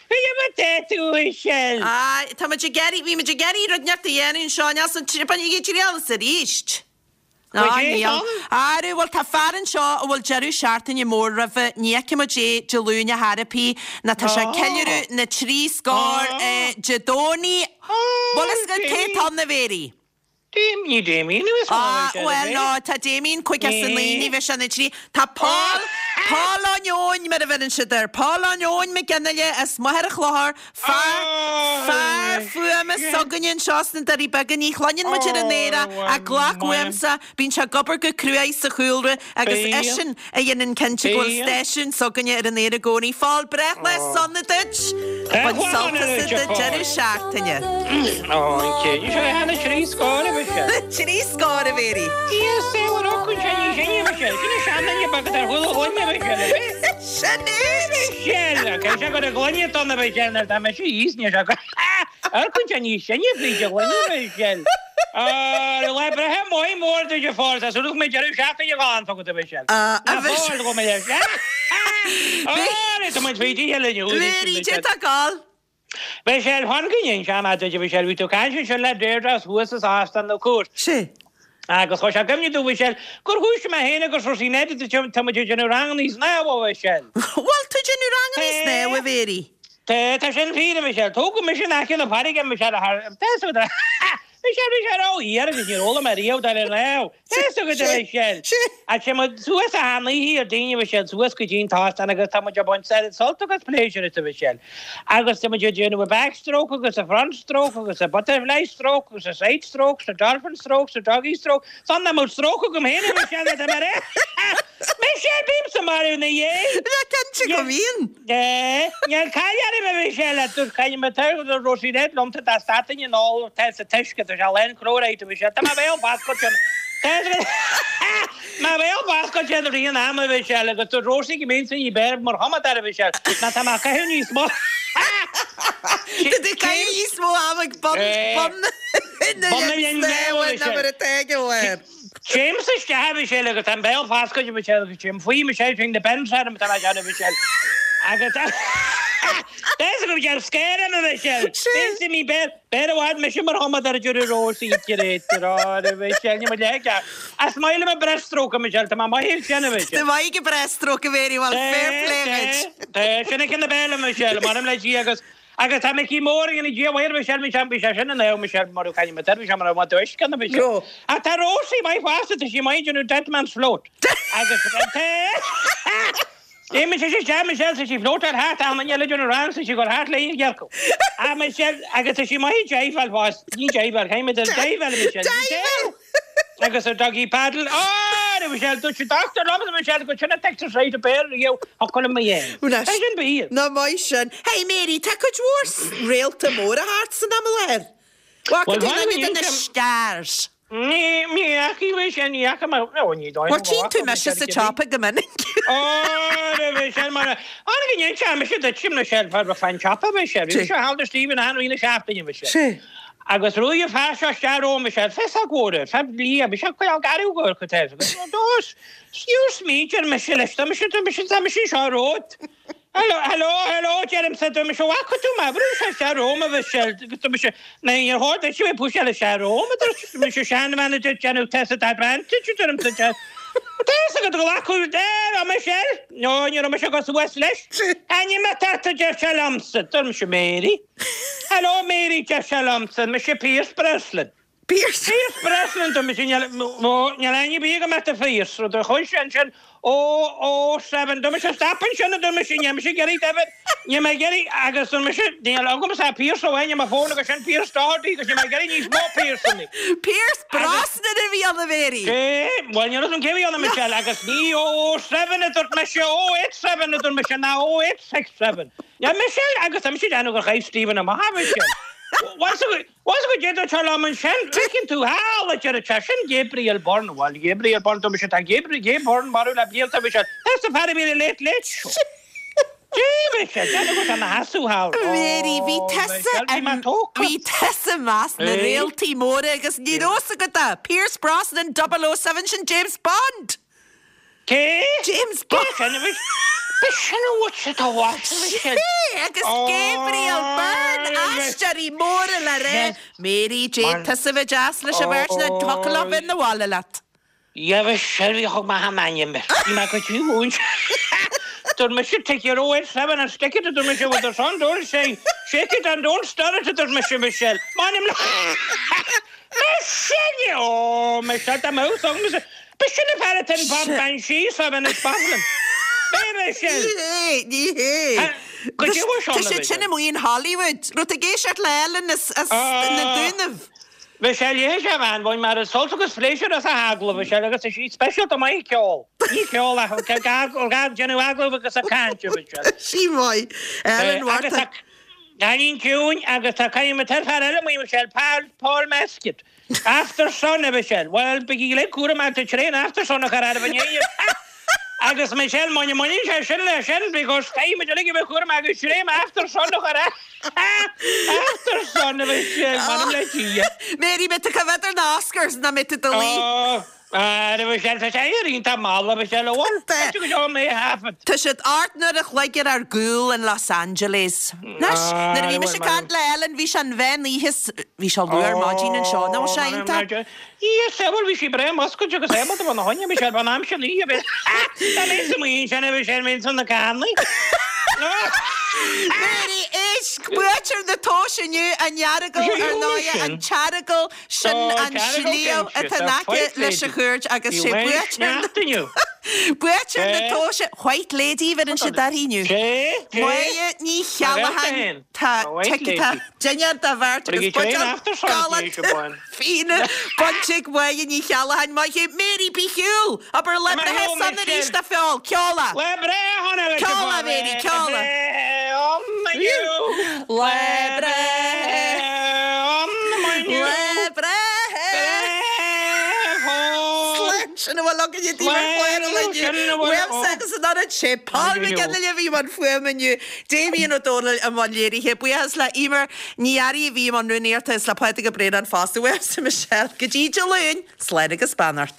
S9: é mar tá tú, Michelle?
S1: Á, tá muid ag iarraidh, bhí muid ag iarraidh rud inteacht a dhéanamh anseo, níl san bainigí triail as arís. Á, níl. Arú, bhuel, tá fear anseo a bhfuil deireadh seachtaine mór roimhe, ní fheicfidh muid é Dé Luain ar chor ar bith, ná tá sé ag ceiliúradh na dtrí scór Dé Domhnaigh. Bhfuil fhios agat cé atá ann, a Mhéirí?
S9: Ní Damien a bheas ann,
S1: Á, bhuel, no, tá Damien 59, ní bheidh sé ina thrí. Tá Paul, Paul Eoin, mar a bheireann siad air, Paul Eoin Mac Fhionnghaile as Machaire Chlochair, Fear, fear fuaime s'againne anseo sna Doirí Beaga, ní chluineann muid ar an aer é ach glac uaimse, bíonn sé ag obair go cruaidh sa chúlra agus eisean a dhéanann cinnte go bhfuil stáisiún s'againne ar an aer i gcónaí. Phóil, breithlá sona duit! Bain sult as do deireadh seachtaine. Trí scór, a Mhéirí. Sin é!
S9: Sin! Cé sé gur a gloine donna bheith sin ar tá mise thíos níos ag ar cuid an níos sine fríd a ghloine bheith sin. Ar lá breithe maith mór duit a Phóil tá súil agam go mbeidh deireadh seachtaine galánta agat a Mhichelle.
S1: A Mhichelle.
S9: Go mbeidh Ar tá muid fríd oíche linn.
S1: Mary, cé tá ag gabháil?
S9: Michelle, Fan go n-inseoidh mé duit a Mhichelle, bhí tú ag caint ansin le Deirdre as thuas as Óstán na Cúirte.
S1: Sea.
S9: Agus chuir sé i gcuimhne domh, Mhichelle, gur thoisigh mé féin agus Rosie Ned tá muid ag déanamh rangannaí snámha, a Mhichelle.
S1: Bhfuil tú ag déanamh rangannaí snámha, a Mhéirí?
S9: Tá, tá sin fíor, a Mhichelle. Tógadh mise in aice na farraige, a Mhichelle, thar, tá fhios agat, Michelle, bhí sé ró-fhíor agus níor fhoghlaim mé riamh dul ar snámh. Tá fhios agat, a Mhichelle. Ach téann muid suas achan oíche ar daoine, a Mhichelle, suas go dtí an t-óstán agus tá muid ag baint sult agus pléisiúr as, a Mhichelle. Agus tá muid ag déanamh a back stroke agus a front stroke agus a butterfly stroke agus a side stroke 's a dolphin stroke 's a doggy stroke. San nach mbeadh stroke agam féin, a Mhichelle, má tá mé ar Michelle, bímse marbh ina dhiaidh.
S1: Bheadh cinnte go mbíonn.
S9: Níl caill orm, a Mhichelle, a dúirt Caille Mac Rosie Ned liomsa dá stadfainn ag ól tá sa t-uisce, tá sé lán chlóiríde, a Mhichelle. Tá mo bhéal foscailte. Mo bhéal foscailte i rith an ama, a Mhichelle, agus dúirt Rosie go mbeinnse ní b'fhearr mar chumadóir, a Mhichelle, ná tá mé ag caitheamh níos mó.
S1: Tá tú ag caitheamh níos mó ama ag bun bun na linne snámha ná mar atá ag an bharr.
S9: Téimse isteach, a Mhichelle, agus tá an béal foscailte, a Mhichelle, agus téim faoi, Michelle, téann na bends orm, tá mé ag déanamh, Michelle. Agus tá fhios agam, Michelle, scare orm, a Mhichelle. Bíonn mé béal, béal i bhfad mise mar chumadóir a deir Rosie, a Mhichelle, ní mo leithéid. Is maith liom an breaststroke, a Michelle, tá mé maith ag sin, a Mhichelle.
S1: Tá maith ag an breaststroke, a Mhéirí, bhuel, fair play dhuit.
S9: Tá, sin é ceann na béal, a Michelle, m'anam le Dia agus Agus tá Micí Mór ag an Dia mhaor Michelle, Michelle, bhí sé sin in ann Michelle mar caithfidh mé bhí sé mar a bhain uisce na Michelle. Ach tá Rosie maith fosta, tá sí maith ag déanamh dead man's float. Agus tá Imigh sé isteach Michelle, tá sí floatáil thart, tá an duine eile ag déanamh rang, tá sí ag dul thart léi ag gearcadh. Ach Michelle, agus tá sí maith ag diveáil fosta, ní diveáil, caithfidh mé diveáil Michelle.
S1: Diveáil!
S9: Agus a doggy paddle, Á, a Mhichelle, dúirt an dochtúir liom, a Mhichelle, go sin an t-exercise ab fhearr riamh a chuala mé dhéanamh.
S1: Bhuel,
S9: Tá sin fíor.
S1: Nach maith sin. Hey Mary, tá cuid mhór réalta móra thart san am i láthair. Bhfaca
S9: Bhuel,
S1: tú
S9: bhain
S1: duine de
S9: mé
S1: na stars?
S9: Ní, ní fhaca mé sin, ní fhaca mé, ó, ní dóigh
S1: Bhuel,
S9: liom go
S1: tchíonn tú
S9: bhfaca mé
S1: mise
S9: sin
S1: sa
S9: cibé.
S1: tsiopa go minic.
S9: Ó, a Mhichelle, mar a, tháinig an inse, mise duit, Michelle, fá fan tsiopa, Michelle. Bhí mise thall do Stephen achan rith na seachtaine, Michelle.
S1: Sea.
S9: Agus ruaig an fear seo isteach romham, Michelle, féasóg mhór air, fear liath, Michelle, coinneáil garbh go ar chuid air. Agus níor smaointigh ar mise leis, tá mise, tá mise, tá mise anseo romhat. Hello, hello, hello, deirimse, tá mise, bhfaca tú mé, bhrúigh sé isteach romham, a Mhichelle, agus tá mise, ná níor chóir duit a bheith ag puiseáil isteach romham, a dúirt mise, seanbhean a dúirt déanamh test advantage, a deirimse, tá fhios agat glacadh, a Michelle, no, ní raibh mise ag dul suas leis. Ainm atá ort, a deir sé liomsa, dúirt mise, Mary. Hello Mary, deir sé liomsa, mise Pierce Brosnan.
S1: Pierce?
S9: Pierce Brosnan, dúirt mise, níl, ó, níl aithne ar bith agam ort a Phierce, rud a chuir sé ansin, ó, ó, seven, dúirt mise, stop ansin, a dúirt mise, níl mise ag iarraidh David, níl mé ag iarraidh, agus dúirt mise, níl agamsa ach Pierce amháin ar mo fón agus sin Pierce Doherty agus níl mé ag iarraidh níos mó Pierceanna.
S1: Pierce Brosnan a bhí ann, a Mary!
S9: Cé? Bhuel, níl a fhios agam cé a bhí ann, a Michelle, agus ní ó, ó, seven a dúirt mise, ó, eight, seven a dúirt mise, ná ó, eight, six, seven. Yeah Michelle, agus tá mise ag déanamh gur chaith Stephen amach é Michelle. Bhfuil fhios agat goidé a dúirt sé liom ansin, feiceann tú thall a deir sé, sin Gabriel Byrne, bhuel Gabriel Byrne dúirt mise, tá Gabriel, Gay Byrne marbh le blianta Michelle, that's the fear a bhí ar an Late Late Show. Dé Michelle, déanamh go raibh sé ina sheasamh thall.
S1: Mary, bhí
S9: Oh,
S1: tusa
S9: Michelle, bhí mé tógtha.
S1: bhí tusa i measc na réaltaí móra agus ní raibh fhios agat é, Pierce Brosnan 007 sin James Bond!
S9: Cé?
S1: James Bond.
S9: Cé sin a bhí? B'shin a bhfuil siad a mhaith
S1: Sé agus Gabriel Byrne, aisteoirí móra le rá. Mary Jane, tusa a bheith deas leis an bheirt ná thiocfadh leo bheith 'na bhaile leat.
S9: Dheamhan Shelby a thug mé thar m'ainm air. Bhí mé go dtí mhúint. Dúirt mise take your 087 and stick it a dúirt mise with the sun don't say shake it and don't stir it a dúirt mise Michelle. M'ainm le Michelle! Ó Michelle tá mé úsáid B'shin an fear atá in Bob Banshee sa Venice Bothlin. B'é Michelle.
S1: Ní hé, ní hé.
S9: Go dtí bhfuil
S1: Tá siad sin amuigh in Hollywood. Raibh tú ag éisteacht le Ellen as na Dúnaibh.
S9: Michelle, léigh sé a bhean bhain mar is sult agus pléisiúr as a hagallamh, Michelle, agus is í speisialta maith ag ceol. Ní ceol ach ag déanamh agallamh agus ag caint, Michelle.
S1: Sí maith. Ellen
S9: Agus
S1: Mharta.
S9: tá cailín ciúin agus tá cailín tá fear eile amuigh, Michelle, Paul, Paul Mescal. Aftersun, a Mhichelle. Bhuel, bígí uilig cúramach, tá tréan Aftersun a chur oraibh inné. Agus Michelle, muna mbaineann sé sin leis sin, because caithfidh muid uilig a bheith cúramach agus tréan Aftersun a chur Aftersun, a Mhichelle, m'anam le Dia.
S1: Mary, mbeidh tú ag coimhéad ar na Oscars nó mbeidh tú i do luí?
S9: Oh, a Mhichelle, tá sé iontach mall, a Mhichelle, bhuel, tá go deo mé thaifead.
S1: Tá siad 8 n-uair a chloig ar ár gcúl in Los Angeles. Anois, nuair a bhí mise ag caint le Ellen, bhí sé an mheán oíche, bhí sé luath ar maidin anseo, nach bhfuil sé iontach?
S9: Yes, bhuel, bhí sí breá muscailte agus ábalta bheith ina choinne, bhí sé ar an am sin oíche, bhí Tá mé sa mhaoin sin, bhí sé ar mé san na cannaí.
S1: Mary, éist, buaiteoir na tomhaise inniu, an Earagail, ar ndóigh, an tEaragail, Sin an sliabh atá in aice leis an chúirt agus sé buaiteoir buaiteoir na tomhaise White Lady a bheireann siad uirthi inniu. Máire Ní Cheallacháin tá tá dinnéar dá bheirt agus buidéal galánta fíona bainte ag Máire Ní Cheallacháin. Maith thú Mary bí ar shiúl! Abair lá breithe sona arís a Phóil! Ceol é!
S9: Lá breithe shona leis an
S1: Ceol é Mary, ceol é! Lá breithe Lá breithe Slán sin a bhfuil againne daoibh ar chlár an lae inniu. Uaimse agus an oiread sé Paul McGinley a bhí i mbun fuaime inniu, Damien Ó Dónaill i mbun léirithe. Buíochas le Emer Ní Fhearraigh a bhí i mbun rúnaíochta is le Pádraig Ó Braonáin fosta. Uaimse Michelle go dtí Dé Luain, slán agus beannacht.